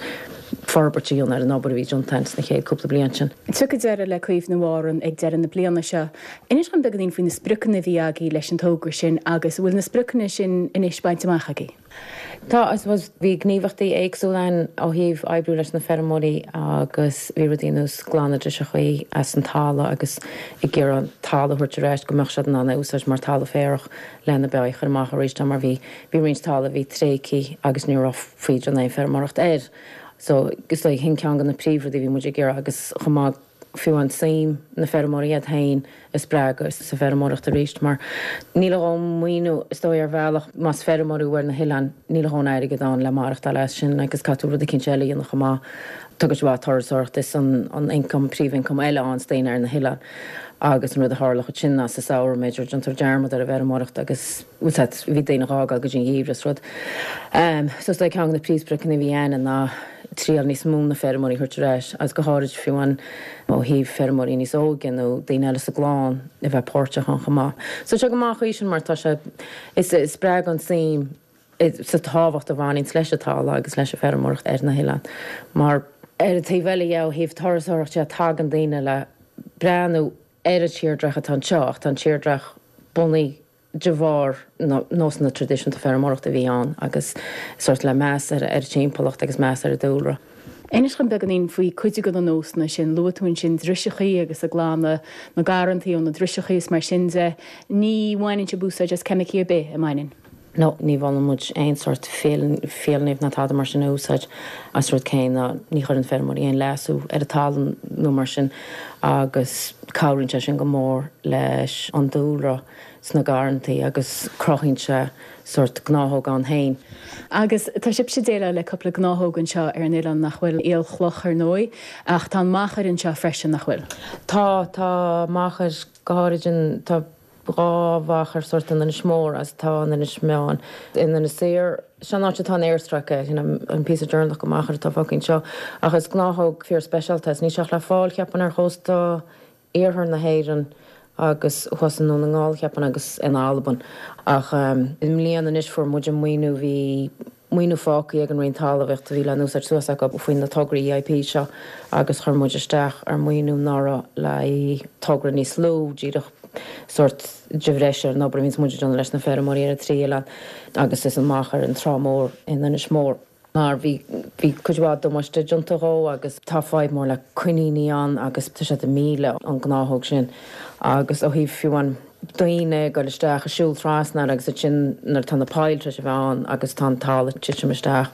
forbairt a dhéanamh ar an obair a bhí déanta againn sna chéad cúpla bliain sin. Tiocfaidh deireadh le Caomhnú Árann ag deireadh na bliana seo. Inis dom beagáinín faoi na spriocanna a bhí agaibh leis an togra sin agus an bhfuil na spriocanna sin anois bainte amach agaibh? Tá, I suppose, bhí gníomhaíochtaí éagsúla ann ó thaobh oibriú leis na feirmeoirí agus bhí rudaí ar nós glanadh driseachaí as an talamh agus ag iarraidh an talamh a thabhairt ar ais go mbeadh siad in ann é a úsáid mar talamh féarach lena beithígh a chur amach arís mar bhí bhí roinnt talamh a bhí tréigthe agus ní raibh féidir aon feirmeoireacht air. So is dóigh sin ceann de na príomhrudaí a bhí muid ag iarraidh agus chomh maith fiú an suim na feirmeoirí iad féin a spreagadh sa bhfeirmeoireacht arís mar níl a dhóthain maoiniú is dóigh ar bhealach más feirmeoir thú ar na hoileáin níl a dhóthain airgead ann le maireachtáil as sin agus caithfidh tú rud eicínt eile a dhéanamh chomh maith. Tá cuid mhaith turasóireacht is an an ioncam príomhioncam eile ann sna daoine ar na hoileáin. Agus an rud a tharlódh ansin ná sa samhradh, b'fhéidir, déantar dearmad ar an bhfeirmeoireacht agus, bhfuil 's agat, bhí daoine a fhágáil go dtí an gheimhreadh is rud. So is dóigh ceann de na príomhspriocanna a bhí againn ná triail níos mó na feirmeoirí a thabhairt ar ais agus go háirid fiú amháin ó thaobh feirmeoirí níos óige nó daoine eile sa gclann a bheith páirteach ann chomh maith. So tá sé go maith an chaoi sin mar tá sé, is spreagann suim sa tábhacht a bhaineanns leis an talamh agus leis an bhfeirmeoireacht ar na hoileáin. Mar ar an taobh eile dhe, ó thaobh turasóireacht de, tagann daoine le breathnú ar an tírdreach atá anseo ach tá an tírdreach bunaithe de bharr na nósanna traidisiúnta feirmeoireachta a bhí ann agus sórt le meas ar an timpeallacht agus meas ar an dúlra. Inis dhom beagáinín faoi cuid de na nósanna sin. Luaigh tú ansin driseachaí agus ag glanadh na garrantaí ó na driseachaí is mar sin de. Ní bhaineann sibh úsáid as ceimicí ar bith, an mbaineann? No, ní mholann muid aon sórt fiailnimh ná tada mar sin a úsáid. As rud céanna, ní chuireann feirmeoirí aon leasú ar an talamh nó mar sin agus cabhraíonn sé sin go mór leis an dúlra sna garrantaí agus cruthaíonn sé sórt gnáthóg ann féin. Agus tá sibhse ag déileáil le cúpla gnáthóg anseo ar an oileán nach bhfuil? Aolchloch ar ndóigh, ach tá an machair anseo freisin, nach bhfuil? Tá, tá machair, go háirid an, tá. 2 mhachair sórt in Inis Mór agus tá in Inis Meáin. In Inis Oírr, seo an áit atá an aerstráice, sin an píosa deireanach de mhachair atá fágtha anseo. Ach is gnáthóg fíor speisialta é is níl sé ach le fáil, cheapfainn, ar chósta iarthar na hÉireann agus thuas i nDún na nGall, cheapfainn, agus in Albain. Ach i mbliana anois fuair muid an maoiniú, bhí. maoiniú fágtha ag an Roinn Talmhaíochta a bhí le n-úsáid suas acu faoi na tograí EIP seo agus chuir muid isteach ar maoiniú anuraidh le haghaidh togra níos lú, díreach sórt de bhreis ar an obair a bhíonns muid ag déanamh leis na feirmeoirí ar an trí oileán agus is an machair an Trá Mhór in Inis Mór. Mar bhí bhí cuid mhaith damáiste déanta dhó agus tá fadhb mór le coiníní ann agus tá siad ag milleadh an gnáthóg sin agus ó thaobh fiú an daoine ag goil isteach ag siúl trasna air agus ansin nuair atá na poill tar éis a bheith ann agus tá an talamh ag titim isteach.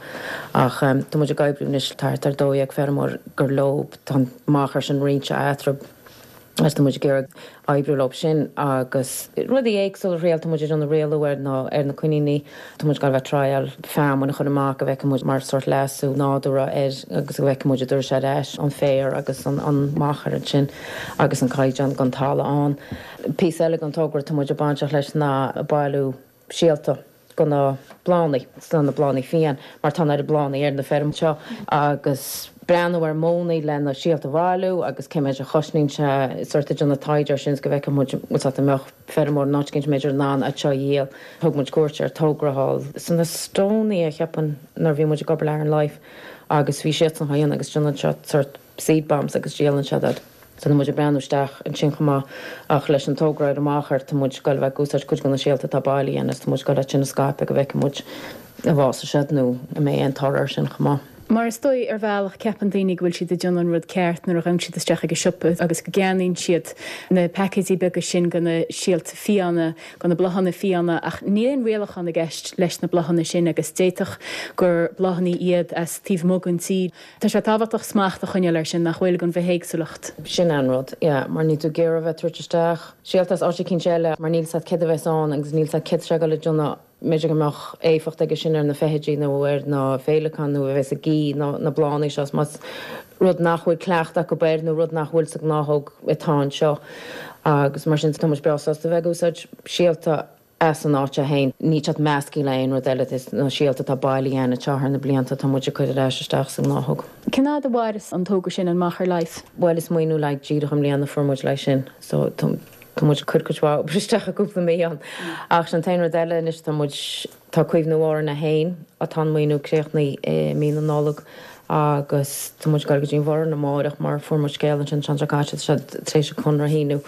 Ach tá muid ag oibriú anois, tá thart ar 12 feirmeoir gur leo tá an machair sin roinnte eatarthu agus tá muid ag iarraidh oibriú leo sin agus rudaí éagsúla a thriail, tá muid ag déanamh rialú ar na ar na coiníní, tá muid ag goil a bheith ag triail feamainn a chur amach go bhfeicfidh muid mar sórt leasú nádúrtha air agus go bhfeicfidh muid an dtabharfaidh sé ar ais an féar agus an an machair ansin agus an caighdeán den talamh ann. Píosa eile den togra atá muid bainteach leis ná bailiú síolta go na bláthanna, sna na bláthanna fiáin, mar tá an oiread bláthanna ar na feirm seo, agus breathnú ar mhodhanna le na síolta a bhailiú agus cé méid a chosnaíonn sé, sórt ag déanamh taighde ar sin is go bhfeicfidh muid bhfuil 's agat an mbeadh feirmeoir in áit éicint b'fhéidir in ann iad seo a dhíol. Thug muid cuairt ar togra thall san Estonia, cheapfainn, nuair a bhí muid ag obair le Aran Life agus bhí siadsan á dhéanamh agus déanann siad sórt seed bombs agus díolann siad iad. So tá muid ag breathnú isteach ansin chomh maith ach leis an togra ar an machair tá muid ag goil a bheith ag úsáid cuid de na síolta atá bailithe againn agus tá muid ag goil iad sin a scaipeadh go bhfeicfidh muid an bhfásfaidh siad nó an mbeidh aon toradh air sin chomh maith. Mar is dóigh, ar bhealach, ceapann daoine go bhfuil siad ag déanamh an rud ceart nuair a ghabhann siad isteach ag an siopa agus go gceannaíonn siad na paicéidí beaga sin de na síolta fiáine, de na bláthanna fiáine ach níl aon rialachán i gceist leis na bláthanna sin agus d'fhéadfadh gur bláthanna iad as taobh amuigh den tír. Tá sé tábhachtach smacht a choinneáil air sin, nach bhfuil, don bhithéagsúlacht. Sin é an rud, yeah, mar níl tú ag iarraidh a bheith ag tabhairt isteach síolta as áit eicínt eile mar níl 's agat céard a bheas ann agus níl 's agat céard tá sé ag dul a dhéanamh, b'fhéidir go mbeadh éifeacht aige sin ar na feithidí nó ar na féileacáin nó a bheas ag ithe na bláthanna seo más rud nach bhfuil cleachtadh acu air nó rud nach bhfuil sa ghnáthóg atá anseo agus mar sin tá muid breá sásta a bheith ag úsáid síolta as an áit féin. Níl siad measctha le aon rud eile, is na síolta atá bailithe againn anseo thar na blianta atá muid ag cur ar ais isteach sa ngnáthóg. Cén fhad a mhaireas an togra sin, an Machair Life? Bhuel is maoiniú le haghaidh díreach i mbliana a fuair muid le haghaidh sin so tá muid ag cur cuid mhaith obair isteach i gcúpla mí ann. Ach sin an t-aon rud eile anois tá muid, Tá Caomhnú Árann 1, atá an maoiniú críochnaithe i mí na Nollag agus tá muid ag dul go dtí an Bhoireann amáireach mar fuair muid scéal ansin an tseachtain seo caite tá siad tar éis an conradh a shíniú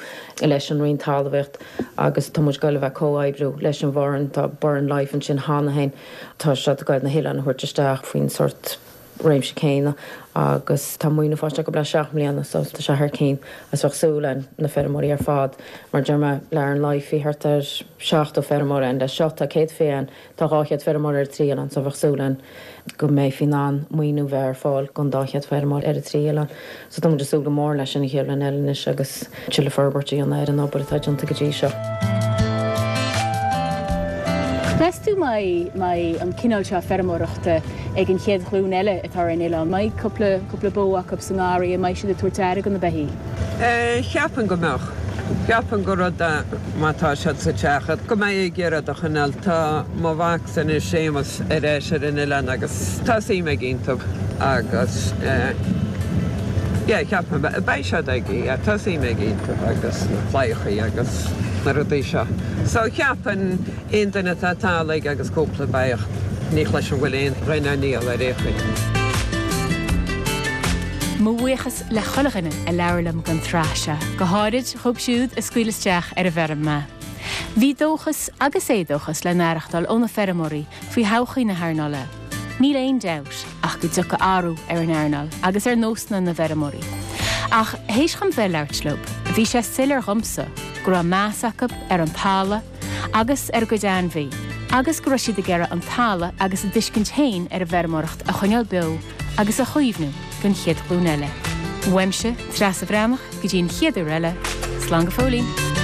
leis an Roinn Talmhaíocht agus tá muid ag dul a bheith ag comhoibriú leis an Bhoireann, tá Burren Life ansin cheana féin, tá siad ag dul na hoileáin a thabhairt isteach faoin sórt réimse céanna agus tá maoiniú faighte acu le 7 mbliana so tá sé thar cinn agus bheadh súil againn na feirmeoirí ar fad mar deir mé le Aran Life bhí thart ar 70 feirmeoir ann leis seo tá 120 ann tá 200 feirmeoir ar an trí oileán so bheadh súil againn go mbeifí in ann maoiniú bheith ar fáil don 200 feirmeoir ar an trí oileán so tá muid ag súil go mór leis sin an chéad bhliain eile anois agus tuilleadh forbairt a dhéanamh ar an obair atá déanta go dtí seo. Meas tú an mbeidh an cineál seo feirmeoireachta ag an chéad ghlúin eile atá ar an oileán? An mbeidh cúpla, cúpla bó acu sa ngarraí? An mbeidh siad ag tabhairt aire do na beithígh? Cheapfainn go mbeadh. Ceapaim gur rud é má tá siad sa teach go mbeidh ag iarraidh iad a choinneáil. Tá mo mhacsa anois, Séamus, ar ais ar an oileán agus tá suim aige iontu agus yeah ceapaim beidh siad aige, yeah tá suim aige iontu agus na claíochaí agus na rudaí seo. So cheapfainn aon duine atá talamh aige agus cúpla beach, ní chloisim go bhfuil aon dhuine á ndíol ar aon chaoi. Mo bhuíochas le chuile dhuine a labhair liom don tsraith seo, go háirid dhóibh siúd a scaoil isteach ar an bhfeirm mé. Bhí dóchas agus éadóchas le n-aireachtáil ó na feirmeoirí faoi thodhchaí na hearnála. Níl aon dabht ach go dtiocfaidh athrú ar an earnáil agus ar nósanna na bhfeirmeoirí. Ach théis dhom bheith ag labhairt leo, bhí sé soiléir dhomsa go raibh meas acu ar an talamh agus ar a gcuid ainmhí agus go raibh siad ag iarraidh an talamh agus a dtuiscint féin ar an bhfeirmeoireacht a choinneáil beo agus a chaomhnú don chéad ghlúin eile. Uaimse, Treasa Bhreathnach, go dtí an chéad uair eile, slán go fóillín!